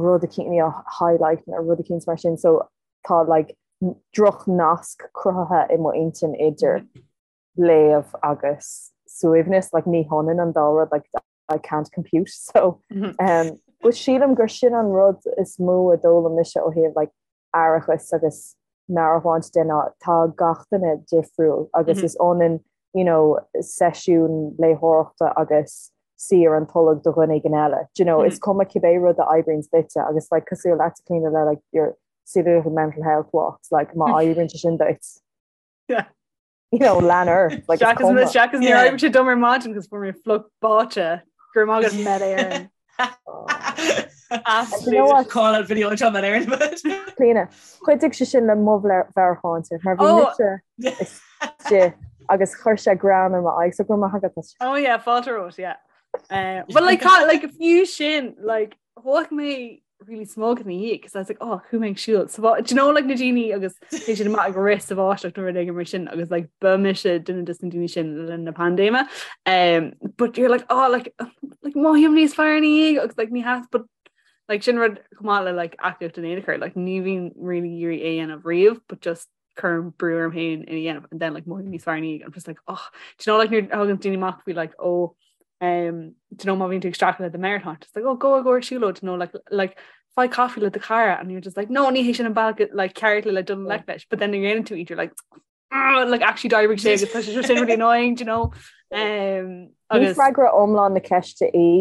rud eicínt you know highlight nó rud eicínt mar sin so tá like droch nasc cruthaithe i mo intinn idir léamh agus suaimhneas like ní hionann an dá rud like I can't compute so um, but sílim gur sin an rud is mó a d'fhoghlaim mise ó thaobh like aireachas agus meabhairshláinte de ná tá gach duine difriúil agus is ionann you know seisiún léitheoireachta agus suí ar an tolg do dhuine éigin eile. Do you know, is cuma cibé rud a oibríonns duitse agus like cosúil leat Clíona le like your silly little mental health walks like má oibríonn sé sin duit. Yeah. You know, lean ort like is cuma. Seachas níor oibrigh sé dom ar maidin agus fuair mé fliuch báite go raibh maith agat Met Éireann. You know what? Call out video anseo Met Éireann. Clíona, chuidigh sé sin le mo mheabhairshláinte mar bhí mise istigh agus chuir sé greann ar m'aghaidh so go raibh maith agat. Oh yeah, fáilte romhat, yeah. Uh, but like, like fiú sin like Thóg mé really smug ina dhiaidh because I was like oh chuaigh mé ag siúl sa do you know like na daoine agus téann siad amach ag rith sa bháisteach nó rud éigin mar sin agus like ba mise duine des na daoine sin le linn na paindéime um, but you're like oh like like mothaím níos fearr ina dhiaidh agus like ní has but like sin rud chomh maith le like aclaíocht in aon chor like ní bhím really ag iarraidh é a dhéanamh riamh but just cuirim brú orm féin é a dhéanamh and then like mothaím níos fearr ina dhiaidh I'm just like oh do you know like nuair a thagann daoine amach faoi like oh um do you know má bhíonn tú ag streachailt le do mheabhairshláinte it's like oh go go ar siúlóid you know like like faigh caife le do chara and you're just like no ní hé sin an bealach like ceart le le dul i ngleic leis but then nuair a dhéanann tú iad you're like ah, like actually d'oibrigh sé agus tá sé sin really annoying do you know um Ní agus freagra iomlán na ceiste í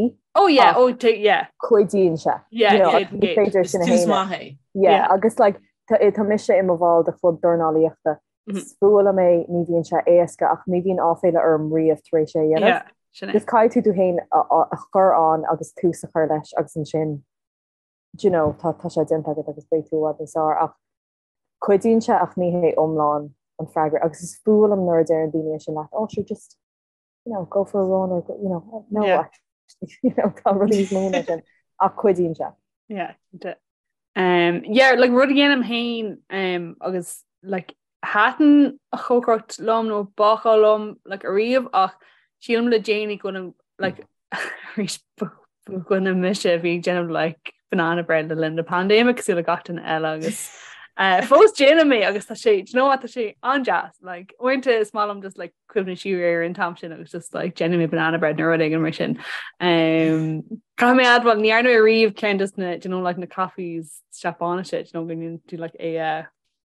oh yeah oh yeah cuidíonn sé yeah you know, ní féidir sin a Is tús shéanadh. maith é. Yeah, Yeah. agus like tá mise i mo bhall de chlub dornálaíochta. Is fuath liom é, ní bhíonn sé éasca ach ní bhíonn áiféala orm riamh tar éis é a dhéanamh. Yeah, sin é. Just caithfidh tú tú féin a chur ann agus tús a chur leis agus ansin do you know, tá tá sé déanta agat agus beidh tú i bhfad níos fearr ach cuidíonn sé ach ní hé iomlán an freagra agus is fuath liom nuair a deireann daoine é sin leat, oh sure just you know, go for a run or you know, no Yeah. actually, you know, tá rudaí níos mó ná sin ach cuidíonn sé. Yeah, cinnte. Um, yeah, like rud a dhéanaim féin um, agus like thaitin an chócaireacht liom nó bácáil liom like ariamh ach sílim le déanaí go bhfuilim like arís. Dhuine mise a bhí ag déanamh like banana bread le linn na paindéime cosúil le gach duine eile agus uh, fós déanaim é agus tá sé do you know what, tá sé an-deas like uaireanta is maith liom just like cuimhneamh siar ar an t-am sin agus just like déanfaidh mé banana bread nó rud éigin mar sin. Um, Caithfidh mé admháil ní dhearna mé riamh ceann just na do you know like na coffees Seapáinise do you know go ndéanann tú like é uh,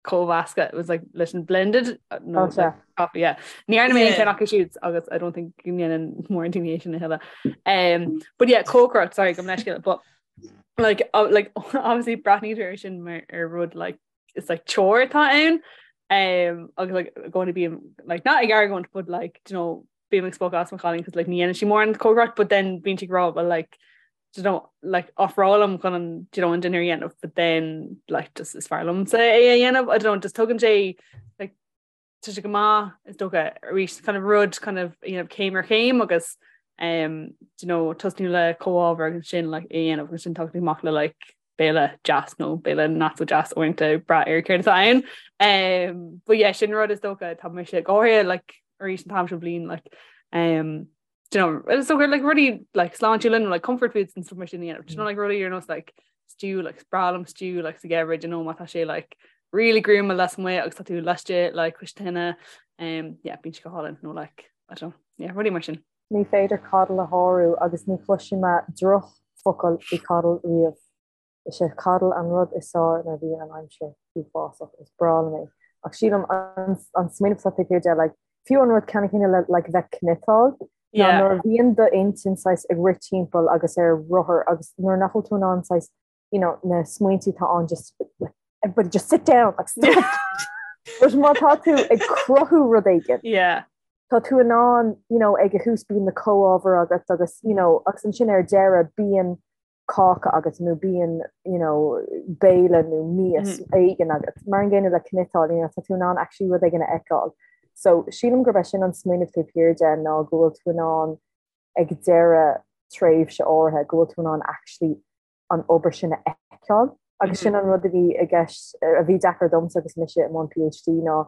cómheascadh it was like leis an blended uh, no, oh, like, coffee yeah. Ní dhearna mé aon cheann acu siúd agus I don't think go ndéanann mórán daoine é sin a thuilleadh. Um, but yeah, cócaireacht sorry gabh mo leithscéal but like uh, like obviously breathnaítear air sin mar ar rud like it's like chore atá ann um, agus like going to be like not ag argóint but like you know bím ag spochadh as mo chailín cos like ní dhéanann sí mórán cócaireacht but then bíonn sí ag rá well like you know like ofrálaim chun an you know an dinnéar a dhéanamh but then like just is fearr liomsa é a dhéanamh I don't know just tugann sé like tá sé go maith is dócha arís kind of rud kind of you know céim ar chéim agus um you know tosnú le comhábhar agus sin like é a dhéanamh agus sin tagann tú amach le like béile deas nó béile not so deas uaireanta ag brath ar céard atá ann. Um, but yeah, sin rud is dócha tá mise go háirithe like arís an t-am seo bliain like um, do you know, is dócha like rudaí like sláintiúla nó like comfort foods and stuff mar sin a dhéanamh. Do you know like rudaí ar nós like stew like is breá liom stew like sa gheimhreadh you know má tá sé like really gruama lasmuigh agus tá tú laistigh like cois tine um, yeah, bíonn sé go hálainn nó like I don't know, yeah, rudaí mar sin. Ní féidir coddle a shárú agus ní chloisfidh mé drochfhocal faoi coddle riamh. Is é coddle an rud is fearr nuair a bhíonn an aimsir uafásach. Is breá liom é. Ach sílim an smaoineamh atá taobh thiar de, like, fiú an rud ceannann céanna le like bheith cniotáil, ná nuair a bhíonn d'intinn saghas ag rith timpeall agus ar rothar agus nuair nach bhfuil tú in ann saghas you know, na smaointe atá ann just like, everybody just sit down like, stop. But má tá tú ag cruthú rud éigin. Yeah. Tá tú in ann, you know, ag a thús bíonn na comhábhair agat agus, you know, agus ansin ar deireadh bíonn cáca agat nó bíonn, you know, béile nó mias mm. éigin agat. Mar an gcéanna le cniotáil, you know, tá tú in ann actually rud éigin a fheiceáil. So sílim gurb é sin an smaoineamh taobh thiar de ná go bhfuil tú in ann ag deireadh tréimhse áirithe go bhfuil tú in ann actually an obair sin a fheiceáil. Agus sin an rud a bhí i gceist, a bhí deacair domsa agus mise i mbun PhD ná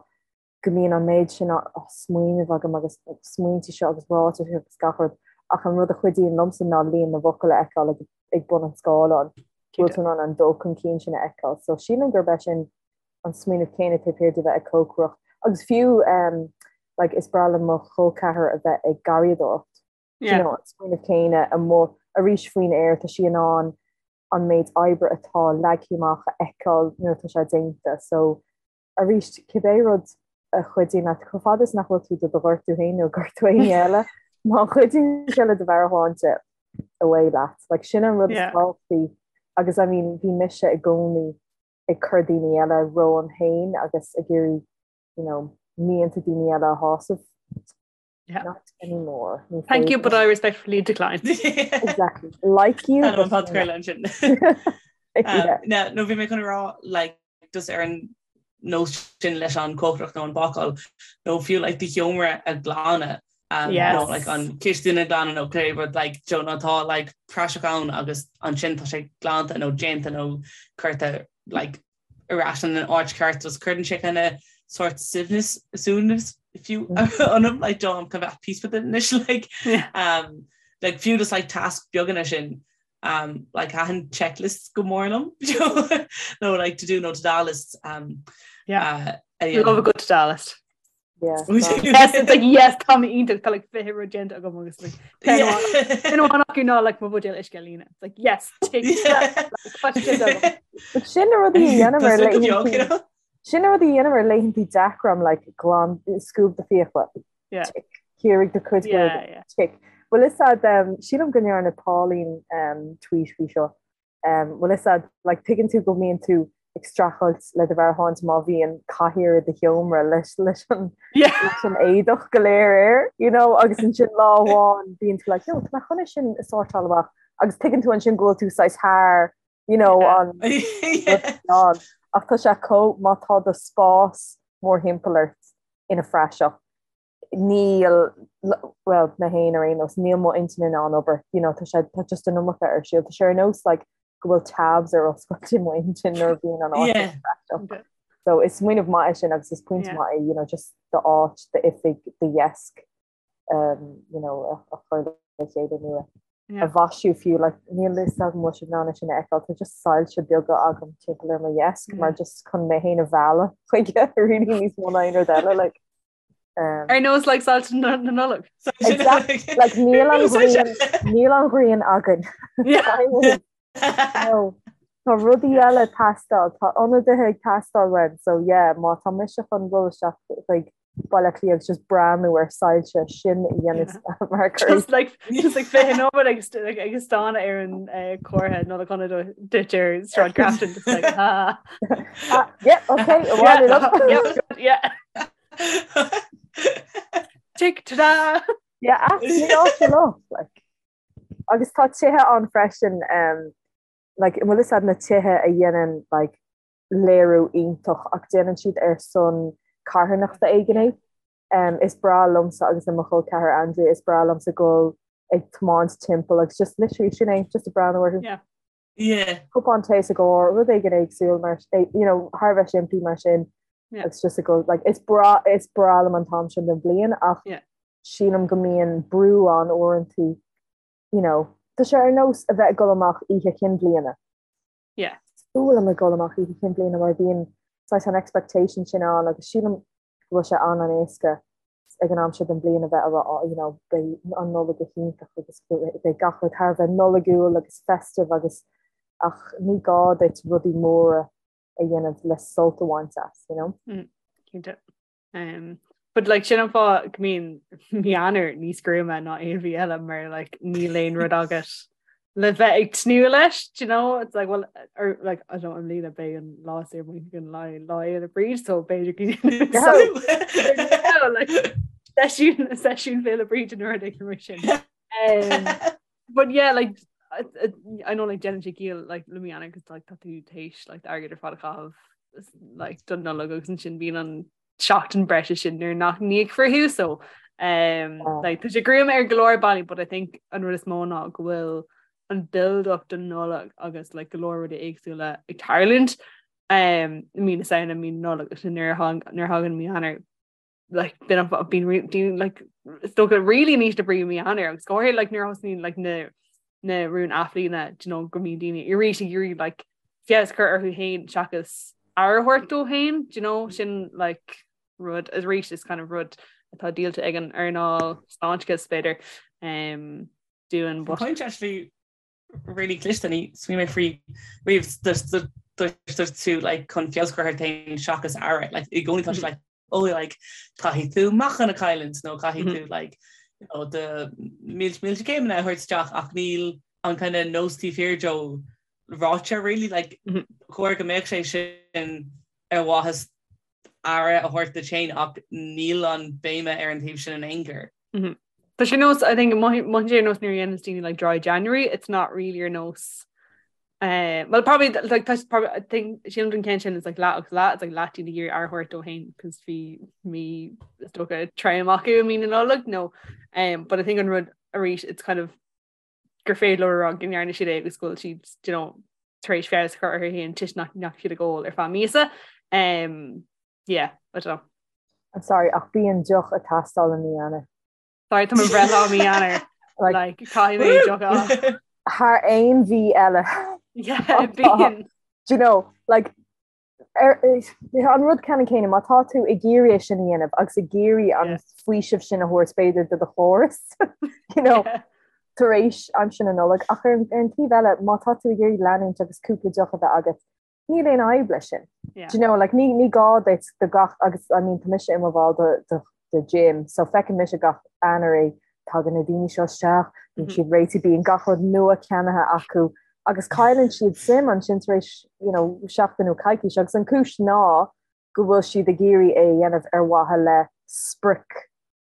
go mbíonn an méid sin smaoineamh agam agus smaointe seo agus ráitis agus gach rud ach an rud a chuidíonn liomsa ná líon na bhfocal a fheiceáil ag bun an scáileáin. Go bhfuil tú in ann an dul chun cinn sin a fheiceáil. So sílim gurb é sin an smaoineamh céanna taobh thiar de bheith ag cócaireacht. Agus fiú like is breá le mo chol ceathar a bheith ag garraíodóireacht. You know, an smaoineamh céanna amuigh arís faoin aer, tá sí in ann an méid oibre atá leagtha amach a fheiceáil nuair atá sé déanta. So arís, cibé rud a chuidíonn leat, chomh fada is nach bhfuil tú do do ghortú féin nó gortú éinne eile, má chuidíonn sé le do mheabhairshláinte, away leat. Like, sin an rud is tábhachtaí agus I mean, bhí mise i gcónaí ag cur daoine eile romham féin agus ag iarraidh, you know, mianta daoine eile a shásamh. Yeah. Not anymore. Ní Thank you, but I respectfully decline. Exactly. Like you. Tá an podchraoladh ansin. Yeah. No bhí mé chun rá like just ar an nós sin leis an cócaireacht nó an bácáil nó fiú like do sheomra a ghlanadh um, yes. nó like an chistin a ghlanadh nó cibé rud like Joe nó tá like praiseach ann agus ansin tá sé glanta nó déanta nó curtha like ar ais in an áit cheart just cuireann sé kind of sort suaimhneas suaimhneas fiú ionam like do I'm kind of at peace with it anois like um like fiú just like tasks beaga sin um like thaitin checklists go mór liom nó like to do nó to do lists um yeah uh, yeah. love a good to do list Yeah. Yes, it's like yes tá mé iontach tá like 20 rud déanta agam agus like ceann amháin acu ná like mo bhuidéal uisce a líonadh. It's like yes tick But sin na rudaí a dhéanaim ar laethanta sin na rudaí a dhéanaim ar laethanta deacra I'm like glan scuab do fiacla. Yeah. Tick. Ciorraigh do chuid Yeah, yeah. Tick. Bhfuil fhios a'd um, sílim go ndearna Pauline um, tweet faoi seo. Bhfuil fhios a'd, like, tuigeann tú go mbíonn tú ag streachailt le do mheabhairshláinte má bhíonn cathaoir i do sheomra leis leis an leis an éadach go léir air, you know, agus ansin lá amháin bíonn tú like, no, tá mé chun é sin a sórtáil amach agus tuigeann tú ansin go bhfuil tú saghas thar, you know, an an ach tá sé chomh má tá do spás mórthimpeall ort ina phraiseach níl, bhuel, mé féin ar aon nós, níl mo intinn in ann obair, you know, tá sé, tá just an iomarca ar siúl. Tá sé ar nós like go bhfuil tabs ar oscailt i mo intinn nuair a bhíonn an áit Yeah. praiseach. So is smaoineamh maith é sin agus is pointe Yeah. maith é, you know, just d'áit, d'oifig, do dheasc, um, you know, a, a chur le chéile nua. a mhaisiú fiú, like níl fhios agam an bhfuil sibh in ann é sin a fheiceáil, tá just soilse beaga agam timpeall ar mo dheasc mar just chun mé féin a mhealladh chuige really níos mó ná aon rud eile like. Um, Ar nós like soilse na Nollag. Exactly. Like níl an ghrian níl an ghrian againn. No. Tá rudaí eile ag teastáil, tá ionadaithe ag teastáil uainn, so yeah, má tá mise chun dul isteach chuig Baile Átha Cliath agus just breathnú ar soilse sin a dhéanamh mar cur. Just like just like fiche nóiméad agus like ag stánadh ar an eh, comhartha Nollaig Shona duit ar Sráid Grafton just like ha. Ah, yeah, okay, yeah, yeah, yeah. Tick ta-da! Yeah, absolutely awful like. Agus tá tithe ann freisin um, like, an bhfuil fhios a'd na tithe a dhéanann like, léiriú iontach ach déanann siad ar son carthanachta éigin é. Um, is breá liomsa agus le mo chol ceathar Andrea, is breá liomsa dul ag tiomáint timpeall agus just literally sin é, just ag breathnú orthu. Yeah. Yeah. Cupán tae sa gcarr, rud éigin éagsúil mar, eh, you know, thar a bheith simplí mar sin. Yeah. Agus just ag dul, like, is breá, is breá liom an t-am sin den bhliain ach Yeah. sílim go mbíonn brú ann uaireanta, you know, tá sé ar nós a bheith ag dul amach oíche chinn bhliana. Yeah. Is fuath liom ag dul amach oíche chinn bhliana mar bíonn saghas an expectation sin ann agus sílim go bhfuil sé an-an-éasca ag an am seo den bhliain a bheith a rá oh, you know, beidh an Nollaig go hiontach agus beidh gach rud thar a bheith Nollaigiúil agus festive agus ach ní gá duit rudaí móra a dhéanamh le sult a bhaint as, you know? Mm, cinnte. Um, but like sin an fáth go mbíonn mí Eanáir níos gruama ná aon mhí eile mar like níl aon rud agat le bheith ag tnúth leis, do you know? It's like well or like I don't know, i mbliana beidh an lá saor bainte an lá Lá Fhéile Bríd so b'fhéidir go like seisiún seisiún Féile Bríd an rud éigin mar sin. Um, but yeah like I, I know like déanann sé ciall like le mí Eanáir cos like tá tú théis like airgead ar fad a chaitheamh like don Nollaig agus ansin bíonn an seachtain breise sin nuair nach n-íocfar thú so um, oh. like, tá sé gruama ar go leor bealaí but I think an rud is mó ná go bhfuil an build up don Nollaig agus like, go leor rudaí éagsúla ag tarlúint um, mí na Samhna mí na Nollag agus nuair a thagann mí Eanáir like been been been like is dócha really in ísle brí mí Eanáir agus go háirithe like nuair a thosnaíonn like na na rúin athbhliana do you know go mbíonn daoine arís ag iarraidh like feabhas a chur orthu féin seachas aire a thabhairt dóibh féin do you know sin like rud arís is kind of rud atá díolta ag an earnáil sláinteachais b'fhéidir um, dúinn but Point actually really cliste níor smaoinigh mé faoi riamh dúirt tú like chun feabhas a chur ort féin seachas aire like i gcónaí tá sé like oh like caithfidh tú meáchan a chailliúint nó caithfidh tú like you know do mílte mílte céimeanna a thabhairt isteach ach níl an kind of nós taobh thiar de ráite really like chóir go mbeadh sé sin ar mhaithe aire a thabhairt duit féin ach níl an béime ar an taobh sin in aon chor. Tá sé nós I think mothaíonn sé ar nós nuair a dhéanann daoine like dry January, it's not really ar nós uh, well probably like tá probably I think sílim don ceann sin is like leath agus leath it's like leath daoine ag iarraidh aire a thabhairt dóibh féin cos bhí mí is dócha trom acu i mí na Nollag no um, but I think an rud arís it's kind of gur féidir leo a rá go ndearna siad é agus go bhfuil siad you know, tar éis feabhas a chur orthu féin toisc nach ndeachaigh siad ag ól ar feadh míosa um, yeah, I don't know. I'm sorry, ach bíonn deoch ag teastáil i mí Eanáir. Sorry, tá mo bhreithlá i mí Eanáir. Like, caithfidh mé deoch a Thar aon mhí eile. Yeah, bíonn. Do you know, like, ar, an rud ceannann céanna, má tá tú ag iarraidh é sin a dhéanamh agus ag iarraidh an faoiseamh sin a thabhairt b'fhéidir do do chóras, you know, tar éis aimsir na Nollag, ach ar, ar an taobh eile, má tá tú ag iarraidh leanúint agus cúpla deoch a bheith agat, níl aon fhadhb leis sin. Yeah. Do you know, like, ní, ní gá duit do gach, agus I mean, tá mise i mo bhall do, do, do gym, so feiceann mise gach Eanáir é, tagann na daoine seo isteach, bíonn mm -hmm. siad réitithe, bíonn gach rud nua ceannaithe acu, agus cailleann siad suim ansin tar éis, you know, seachtain nó coicís, agus an cúis ná go bhfuil siad ag iarraidh é a dhéanamh ar mhaithe le sprioc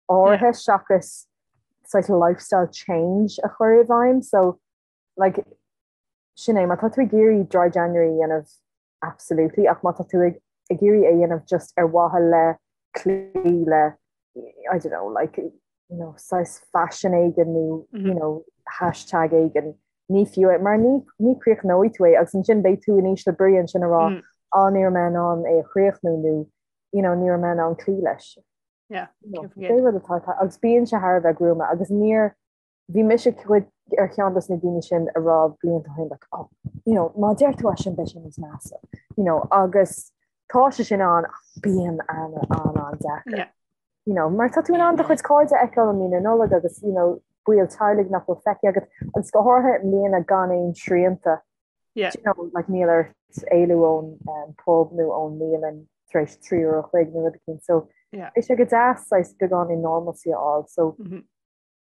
áirithe yeah. seachas saghas lifestyle change a chur i bhfeidhm, so like, sin é, má tá tú ag iarraidh dry January a dhéanamh, absolutely, ach má tá tú ag ag iarraidh é a dhéanamh just ar mhaithe le cloí le, I don't know, like, you know, saghas fashion éigin nó, you know, hashtag éigin, ní fiú é, mar ní, ní chríochnóidh tú é agus ansin beidh tú in ísle brí ansin a rá, á, ní raibh mé in ann é a chríochnú nó, you know, ní raibh mé in ann cloí leis. Yeah, You know, pé rud atá, agus bíonn sé thar a bheith gruama agus níor, bhí mise cuid. ar cheann dos na daoine sin a raibh blianta ó shin like oh you know má deir tú é sin beidh sé níos measa you know agus tá sé sin ann ach bíonn an an an-deacair. Yeah. You know, mar tá tú in ann do chuid cairde a fheiceáil i mí na Nollag agus you know, baill teaghlaigh nach bhfuil feicthe agat agus go háirithe i mbliana gan aon srianta. Yeah. You know, like níl ort éalú ón um, pub nó ón mbialann tar éis 3 uair a chloig nó rud éicint. So yeah. beidh sé go deas saghas beagáinín normalcy a fháil. So mm -hmm.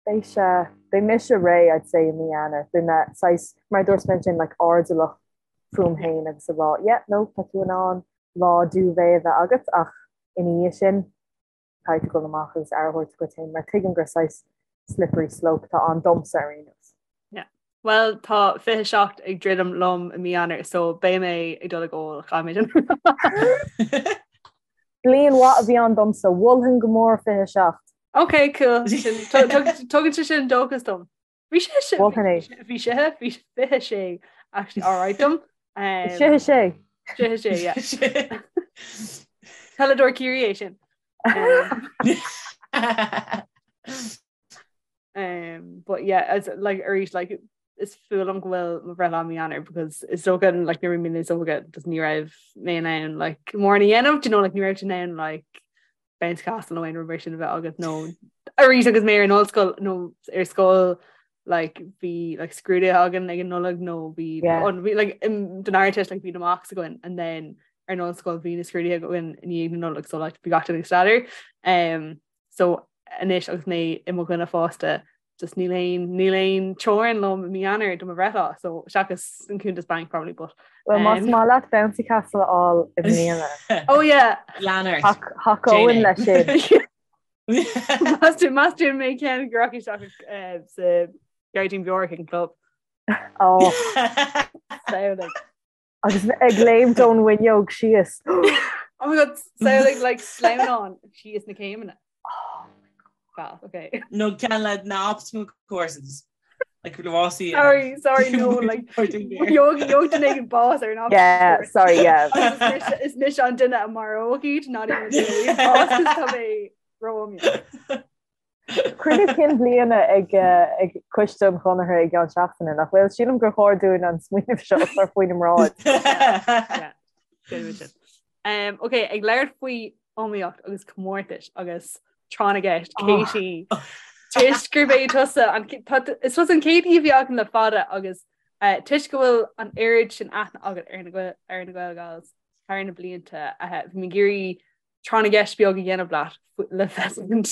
Beidh sé, beidh mise réidh I'd say i mí Eanáir, beidh mé saghas, mar a dúirt mé ansin, like airdeallach fúm féin agus a rá yeah no tá tú in ann lá duvet a bheith agat ach ina dhiaidh sin caithfidh tú dul amach agus aire a thabhairt dhuit féin mar tuigim gur saghas slippery slope atá ann domsa ar aon nós. Yeah. Well tá 27 ag druidim liom i mí Eanáir so beidh mé ag dul ag ól chaithfidh mé sin. Bliain mhaith a bhí ann domsa, mholfainn go mór 27. Ok, cool. Tugann sé sin dóchas dom. Bhí sé sé bhí sé bhí 26 actually alright dom. Sé sé. Sé sé yeah. Peileadóir Ciarraí é sin. Um, but yeah, as like arís like is fuath liom go bhfuil mo bhreithlá i mí Eanáir because is dócha like nuair a bhí mé níos óige just ní raibh mé in ann like mórán a dhéanamh, do you know like ní raibh tú in ann like bouncy castle nó aon rud mar sin a bheith agat nó arís agus mé ar an ollscoil nó ar scoil like bhí like scrúduithe againn ag an Nollaig nó bhí yeah. an bhí like um, don Ardteist like bhí na mocks againn and then ar an ollscoil bhí na scrúduithe againn i ndiaidh na Nollag so like bhí gach duine ag staidéar um, so anois agus mé i mo dhuine fásta just níl aon níl aon teorainn liom i mí Eanáir do mo bhreithlá so seachas an cuntas banc probably but Well más um, maith leat bouncy castle a fháil i mbliana. Oh yeah. Lean ort. Thacóinn leis sin. Meas tú mé ceann go rachaidh isteach eh, sa Gairdín Beorach ag an club. Oh. Samhlaigh. Agus ag léimt ón bhfuinneog síos. Oh my god, samhlaigh like sleamhnán síos na céimeanna. Oh my god. Okay. No ceann le na obstacle courses. Like rásaí. Sorry, sorry, no, like gheobhaidh duine éigin bás ar an obstacle Yeah, course. sorry, yeah. Is mise an duine a maróidh iad, not even bás tá mé ró-iomaíoch. Cruinniú cinn bliana ag Coiste an Chonartha i gceann seachtaine, nach bhfuil? Sílim gur chóir dúinn an smaoineamh seo a chur faoina mbráid. Ok, ag labhairt faoi iomaíocht agus comórtais agus tráth na gceist, Katie, toisc gurb é tusa, is tusa an chéad aoi a bhí againn le fada agus toisc go bhfuil an oiread sin aithne agat ar na Gaelgals thar na blianta, bhí mé ag iarraidh tráth na gceist beag a dhéanamh leat le feiscint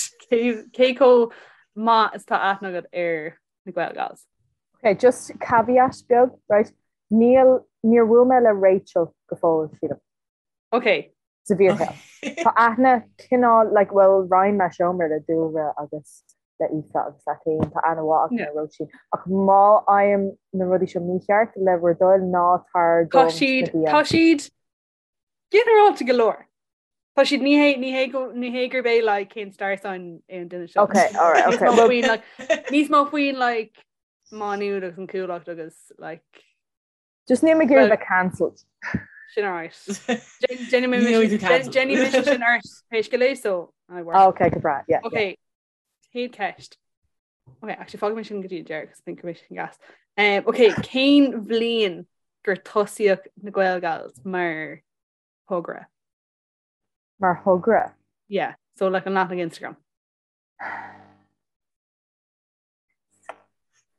cé chomh maith is tá aithne agat ar na Gaelgals. Ok, just caveat beag, right? Níl, níor bhuail mé le Rachel go fóill, sílim. Ok. Sa bhfíorshaol. Tá aithne cineál, like, well, roinn mé seomra le Dúlra agus le Aoife agus leat féin, tá aithne mhaith agam ar Róisín. Ach má fhaighim na rudaí seo mícheart, le bhur dtoil, ná tar dom sna DMs. Tá siad Ginearálta go leor. Tá siad ní hé ní hé go ní hé gurb é like cén star sign é an duine seo. Ok, alright, ok. Níos mó faoin like níos mó faoin like Má Nuad agus an Chuallacht agus like Just níl mé ag iarraidh bheith cancelled. Sin alright. Déanfaidh mise sin ort pé scéal é so I work. Ah, ok, go breá, yeah. Ok, chéad ceist. Ok, actually fágfaidh mé sin go dtí an deireadh, cos I think go mbeidh sin gas. Um, ok, cén bhliain gur tosaíodh na Gaelgals mar thogra? Mar thogra? Yeah, so like an leathanach Instagram.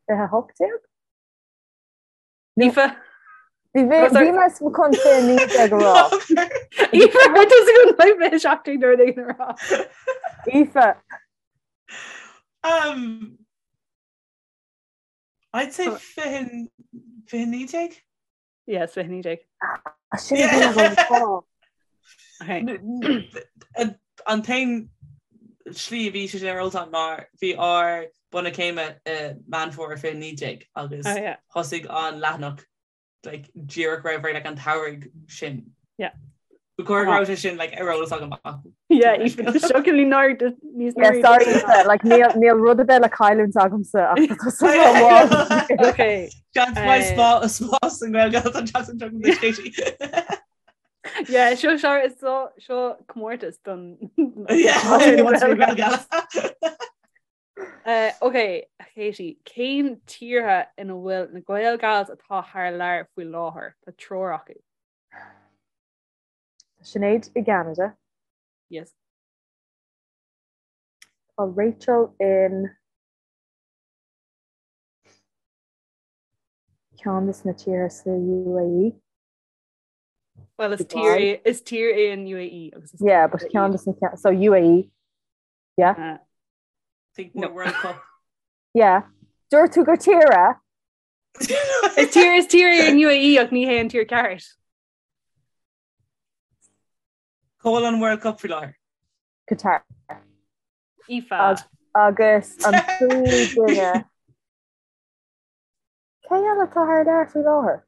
2018? Aoife? Bhí mé bhí mé chun 2019 a rá. Aoife, raibh tusa chun like 2017 nó rud éigin a rá. Aoife. Um, I'd say 2019? Yes, 2019. Ah, sin a bhí agam rá. Okay. An t-aon slí a bhí sé sin ar eolas agam ná bhí ár bronnadh céime i Meán Fómhair 2019 agus Oh, yeah. thosaigh an leathanach like, díreach roimh ré like, an tsamhraidh sin. Yeah. Ba chóir go raibh sé sin like, ar eolas agam ach Yeah, Aoife, shockingly nár níos Yeah, sorry, Aoife, like, níl níl rud ar bith le cailliúint agamsa ach tá tusa rómhaith. Okay. Seans maith Eh. spá spás an Ghaeilge an tseachtain seo don Katie. Yeah, seo seo seo seo comórtas don Yeah, wants to be Gaeilge. Uh, ok, Katie, cén tíortha ina bhfuil na Gaelgals atá thar lear faoi láthair? Tá triúr acu. Tá Sinéad i gCeanada. Yes. Tá Rachel in ceann de na tíortha sa UAE. Well, is tír is tír é an UAE agus is Yeah, but ceann de na so UAE. Yeah. Uh, Think No. more World Cup. Yeah. Dúirt tú gur tír é? Is tír is tír é an UAE ach ní hé an tír ceart. Cá bhfuil an World Cup faoi láthair. Qatar. Aoife. Agus an tríú duine. Cé eile atá thar lear faoi láthair?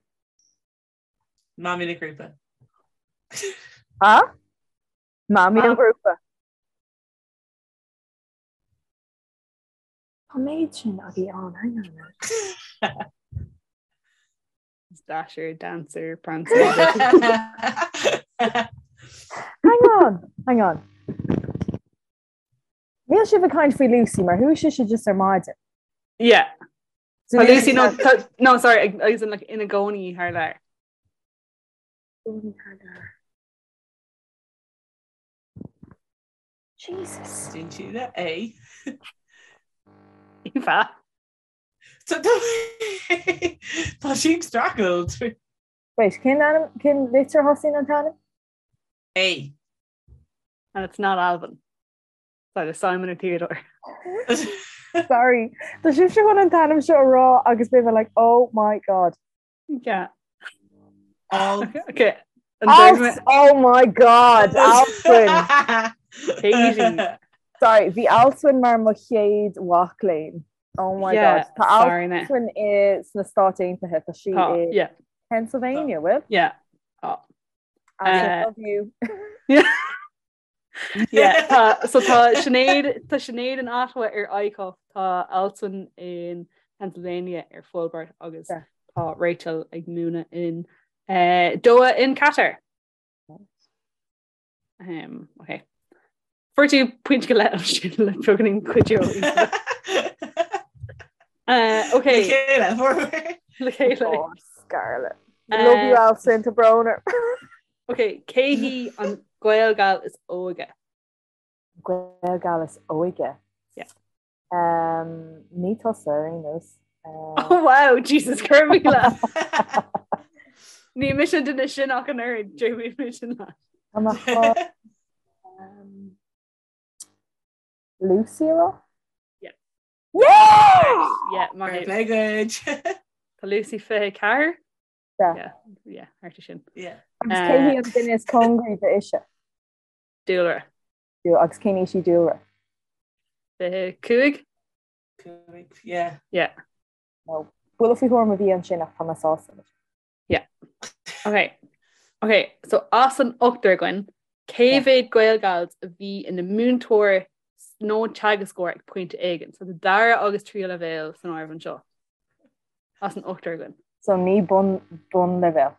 Mamaí na grúpa. Ha? Mamaí an ghrúpa. Tá méid sin agaí ann, hang on a minute. Dasher, Dancer, Prancer. Hang on, hang on. Níl sibh ag caint faoi Lucy mar chuaigh sise just ar maidin. Yeah. Tá Lucy no, tá, no sorry, agus in, like, ina gcónaí thar lear. Gcónaí thar lear. Jesus. Dún sí le A. Aoife. Tá sí ag streachailt. Wait, cén ainm, cén litir a thosaíonn an t-ainm? A. And it's not Alvin. It's either Simon or Theodore. Sorry. Tá sibhse chun an t-ainm seo a rá agus beidh mé like, oh my god. Yeah. All. Okay. An Alf, dúirt mé- oh my god, Alswyn. Katie. Sorry, bhí Alswyn mar mo chéad mhac léinn. Oh my Yeah, god. Tá sorry, na. Alswyn i sna Stáit Aontaithe, tá sí Tá, i yeah, Pennsylvania, bhfuil? yeah. Tá. I Uh, love you. Yeah, tá, so tá Sinéad, tá Sinéad in Ottawa ar ICUF, tá Alswyn in Pennsylvania ar Fulbright agus Yeah. tá Rachel ag múineadh in uh, Doha in Qatar. Um, okay. Fuair tú pointe go leith sin le beagáinín cuidiú. Uh, okay, Le chéile, le chéile. Oh, Scarlett. Love you, Alswyn, tá brón orm. Okay, cé hí an Gaelgal is óige? Gaelgal is óige. Yeah. Um, ní tusa ar aon nós. Um, Oh wow, Jesus cuir le. Ní mise an duine sin ach an oiread, Jamie mise le. Tá mé chun, um, Lucy a rá? Yeah. Yeah! Yeah, maith Fair thú. play duit. Tá Lucy 24? Yeah. Yeah, yeah, thart ar sin. Yeah. Agus cé hí an duine is cóngaraí d'Ise? Dúlra. Agus cén aois í Dúlra? 25? Cúig, yeah. Yeah. No. Buille faoi thuairim a bhí ansin ach tá mé sásta leis. Yeah. Okay. Okay, so as an ochtar againn, cé mhéad Gaelgals a bhí ina múinteoir nó teagascóir ag pointe éigin? So tá dara agus tríú leibhéal san áireamh anseo. As an ochtar againn. So ní bun bunleibhéal.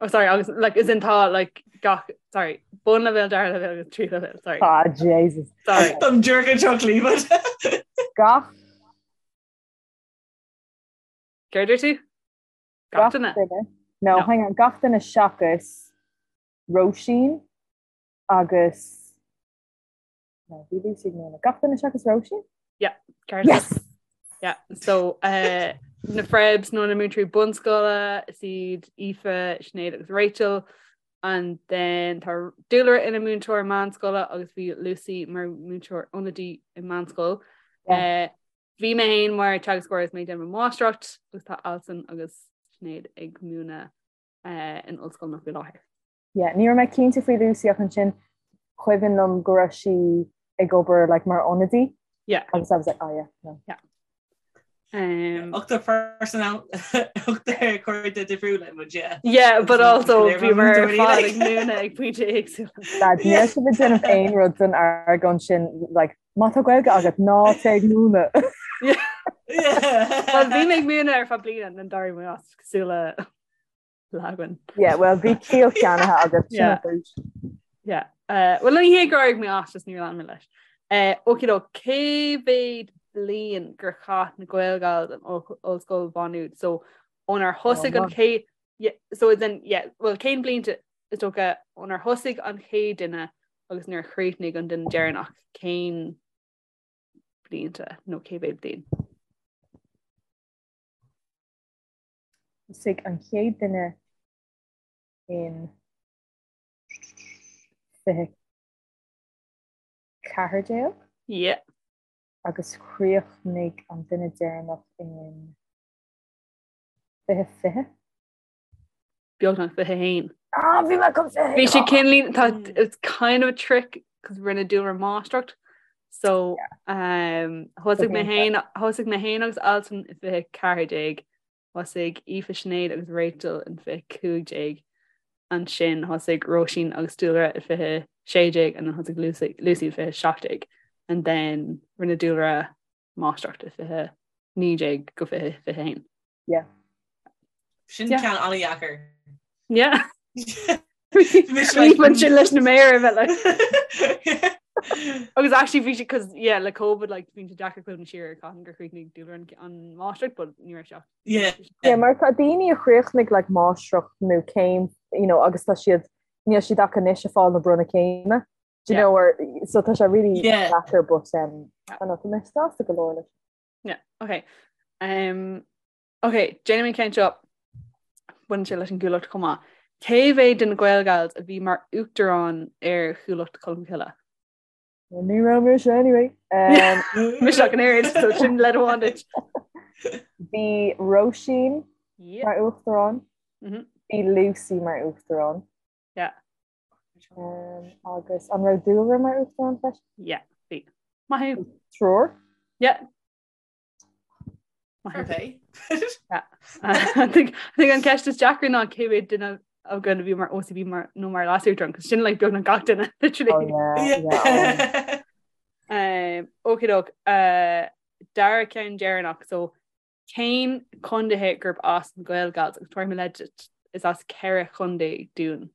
Oh sorry, agus like as in tá like gach sorry, bunleibhéal, dara leibhéal agus tríú leibhéal, sorry. Ah, Jesus. Sorry. Táim díreach anseo clíomh. Gach Céard a dúirt tú? Gach duine? No, No. hang on, gach duine seachas Róisín agus No, bhí Lucy ag múineadh. Gach duine seachas Róisín? Yeah, ceart. Yes! Yeah, so uh, na Frebs nó na múinteoirí bunscoile is iad Aoife, Sinéad agus Rachel and then tá Dúlra ina múinteoir meánscoile agus bhí Lucy mar múinteoir ionadaí i meánscoil. Yeah. Uh, bhí mé féin mar teagascóir is mé ag déanamh mo mháistreacht agus tá Alison agus Sinéad ag múineadh uh, in ollscoil faoi láthair. Yeah, ní raibh mé cinnte faoi Lucy ach ansin cuimhin liom go raibh sí ag obair like mar ionadaí. Yeah. Agus I was like, oh yeah, no. Yeah. Um, Ochtar personal ochtar cairde difriúla muid, yeah. Yeah, but also Léir bhí mar mar múinteoirí, fad like. ag múineadh ag pointe éagsúla. Lad, níl sibh ag déanamh aon rud don argóint sin, like, má tá Gaeilge agat ná téigh ag múineadh. Well, bhí mé ag múineadh ar feadh bliana and d'éirigh mé as cosúil le Lagwan. Yeah, well, bhí ciall ceannaithe agat, sin Yeah. an chúis. Yeah. Uh, well, ní hé gur éirigh mé as, just níor lean mé leis. Eh, okay though, cé mhéad bliain gur chaith na Gaelgals in Ollscoil Mhá Nuad? So ónar thosaigh an chéad yeah, so as in, yeah, well cén blianta is dócha ónar thosaigh an chéad duine agus nuair a chríochnaigh an duine deireanach, cén blianta nó cé mhéad bliain? Thosaigh an chéad duine in 2014. Yeah. Agus chríochnaigh an duine deireanach in 2020. Beagnach 21. Ah, bhí mé chun 21! Bhí sé cineáilín, tá, it's kind of a trick cos rinne Dúlra máistreacht. So, um, thosaigh mé féin, thosaigh mé féin agus Alswyn i 2014. Thosaigh Aoife, Sinéad agus Rachel in 2015. Ansin thosaigh Róisín agus Dúlra i 2016 and then thosaigh Lucy, Lucy i 2017. And then rinne Dúlra máistreacht i 2019 go 2021. Yeah. Sin ceann an-dheacair. Yeah. Bhí sin leis na méara bheith like. Agus actually bhí sé cos yeah le COVID like bhí sé deacair cuimhneamh siar ar cathain gur chríochnaigh Dúlra an, an máistreacht but ní raibh sé ach Yeah. Yeah, mar tá daoine a chríochnaigh like máistreacht nó céim you know, agus tá siad níl siad ach anois ag fáil na bronnadh céime. Do you Yeah. know, or, so tá sé really Yeah. deacair but um, I don't know, tá mé sásta go leor leis. Yeah, okay. Um, Ok, déanfaidh mé an ceann seo. Baineann sé leis an gCuallacht chomh maith. Cé mhéad de na Gaelgals a bhí mar uachtarán ar Chuallacht Cholmcille? Ní raibh mise anyway. Mise ach an oiread, so sin leid amháin duit. Bhí Róisín mar uachtarán. Bhí Lucy mar uachtarán. Yeah. Agus an raibh Dúlra mar uachtarán freisin? Yeah, bhí. Maith thú. Triúr? Yeah. Okay. I think an ceist is deacra ná cé mhéad duine againn a bhí mar OCB mar nó mar leasuachtarán, cos sin like beagnach gach duine literally. Oh, yeah, yeah. Um, okay doke, uh, dara ceann deireanach, so cén contaetha gurb as na Gaelgals agus tabharfaidh mé leid duit, is as ceithre chontae dúinn.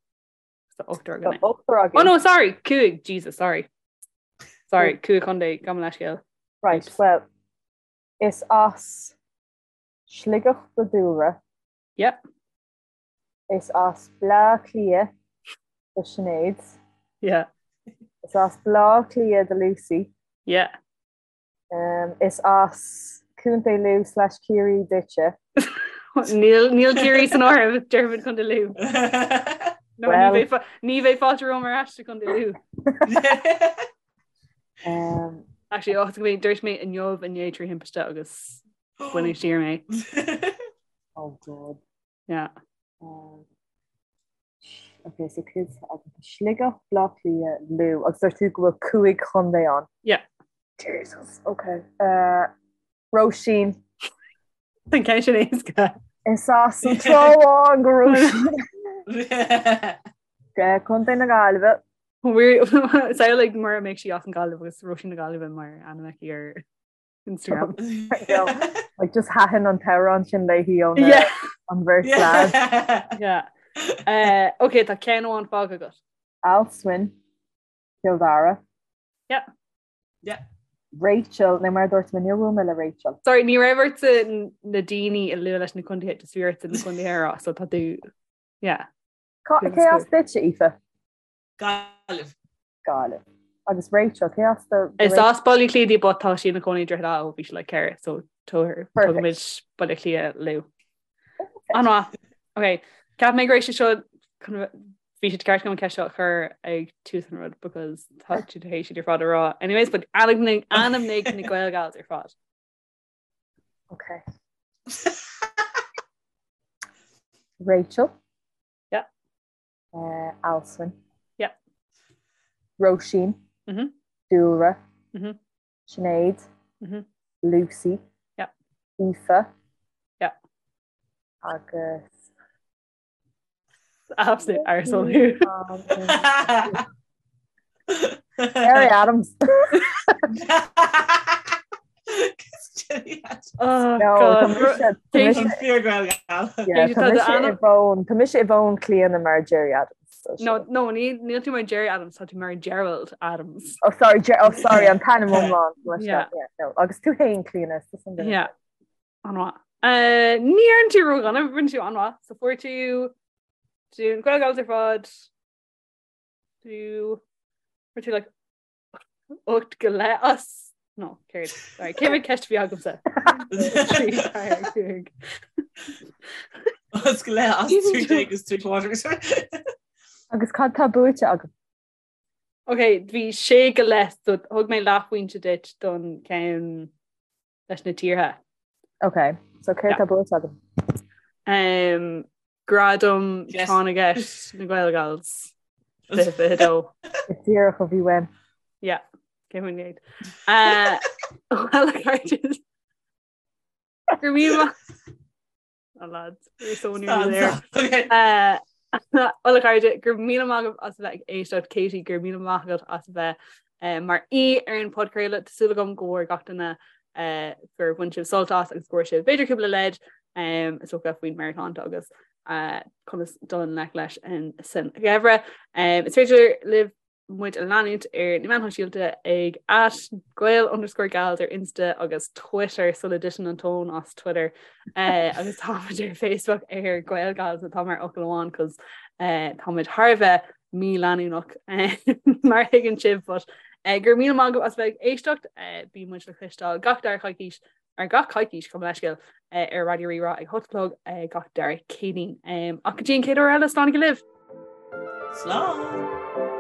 So ochtar againn. Ochtar againn. Oh no, sorry, cúig, Jesus, sorry. Sorry, cúig chontae, gabh mo leithscéal. Right, well, is as Sligeach do Dúlra. Yep. Is as Bleá Cliath do Sinéad. Yeah. Is as Bleá Cliath do Lucy. Yeah. Um, is as Contae Lú slash Ciarraí duitse. Níl níl Ciarraí san áireamh déarfainn Contae Lú. No, Well- ní bheidh ní bheidh fáilte romham ar ais go Contae Lú. Um, Actually, oh, go dúirt mé inniu inné trí thimpiste agus baineadh siar mé. oh God. Yeah. Um, ok, so cúig Sligeach, Bleá Cliath, Lú, agus dúirt tú go bhfuil cúig chontae ann. Yeah. Jesus, ok. Uh, Róisín. An ceann sin éasca. Is as an Trá Bháin do Róisín. Contae na Gaillimhe. Samhlaigh mura mbeadh sí as an Gaillimh agus Róisín na Gaillimhe mar ainm aici ar Instagram. Like just thaitin an t-amhrán sin léi ón an bheirt lad. Yeah. Uh, ok, tá ceann amháin fágtha agat. Alswyn, Cill Dara. Yeah. Yeah. Rachel, nó mar a dúirt mé, níor bhuail mé le Rachel. Sorry, ní raibh ortsa na daoine a lua leis na contaetha, just bhí ortsa na contaetha a rá, so tá tú, yeah. Cé as duitse, Aoife? Gaillimh. Gaillimh. Agus Rachel, cé as do Is as Baile Átha Cliath di but tá sí ina cónaí i Droichead Átha ó bhí sí like 4, so tugaimid Baile Átha Cliath Lú. An-mhaith. Ok, Ceap mé go raibh sé seo bhí sé ceart agam an ceist seo a chur ag tús an rud because tá tú tar éis iad ar fad a rá. Anyways, but ainmnigh ainmnigh na Gaelgals ar fad. Ok. Rachel. Yeah. Uh, Alswyn. Yeah. Róisín. Mm -hmm. Dúlra. Mm -hmm. Sinéad. Mm -hmm. Lucy. Yeah. Aoife. Yeah. Agus Absolute arsehole thú. Gerry Adams. Oh, No, God. tá mise- tá mise- An fíor Gaelgal. yeah, tá Tá mise do i bhfón- tá mise i bhfón Clíona mar Gerry Adams. No, no, níl tú mar Gerry Adams, tá tú mar Gerald Adams. Oh sorry, Ger oh sorry, an t-ainm iomlán. Yeah. Yeah, no. Agus tú féin Clíona, Yeah. An-mhaith. Uh, ní dhearna tú ródhona, rinne tú an-mhaith, so fuair tú tú Gael Gals ar fad tú fuair tú like 8 go leith as no céard sorry cé mhéad ceist a bhí agamsa 3 4 5 As go leith as 3 agus 3 quarters. Agus cad tá buaite agam? Ok, bhí sé go leith so thug mé leathphointe duit don ceann leis na tíortha. Ok, so céard tá buaite agam? Um, Gradam Tráth na gCeist na Gael Gals 2022. Díreach a bhí uaim. Yeah, cé mun géad. Uh, well, a chairde. Go raibh míle Oh lads, we're so nearly there. Okay. Uh, Well a chairde, go raibh míle maith agaibh as a bheith ag éisteacht Katie, go raibh míle maith agat as a bheith uh, mar aoi ar an podchraoladh Tá súil agam go bhfuair gach duine uh, gur bhain sibh sult as agus go bhfuair sibh b'fhéidir cúpla leid um, is dócha faoin meabhairshláinte agus uh, conas dul i ngleic leis an san gheimhreadh. Um, is féidir libh muid a leanúint ar na meáin shóisialta ag at gael underscore gals ar Insta agus Twitter sula dtiteann an tóin as Twitter uh, agus táimid ar Facebook ar Gael Gals atá mar fhocal amháin cos uh, táimid thar a bheith míleanúnach uh, mar a thuigeann sibh but uh, go raibh míle maith agaibh as bheith ag éisteacht uh, bíonn muid le cloisteáil gach dara coicís ar gach coicís gabh mo leithscéal uh, ar Raidió Rí-Rá ag 8 a chlog uh, gach dara Céadaoin. Um, ach go dtí an chéad uair eile slán go libh! Slán!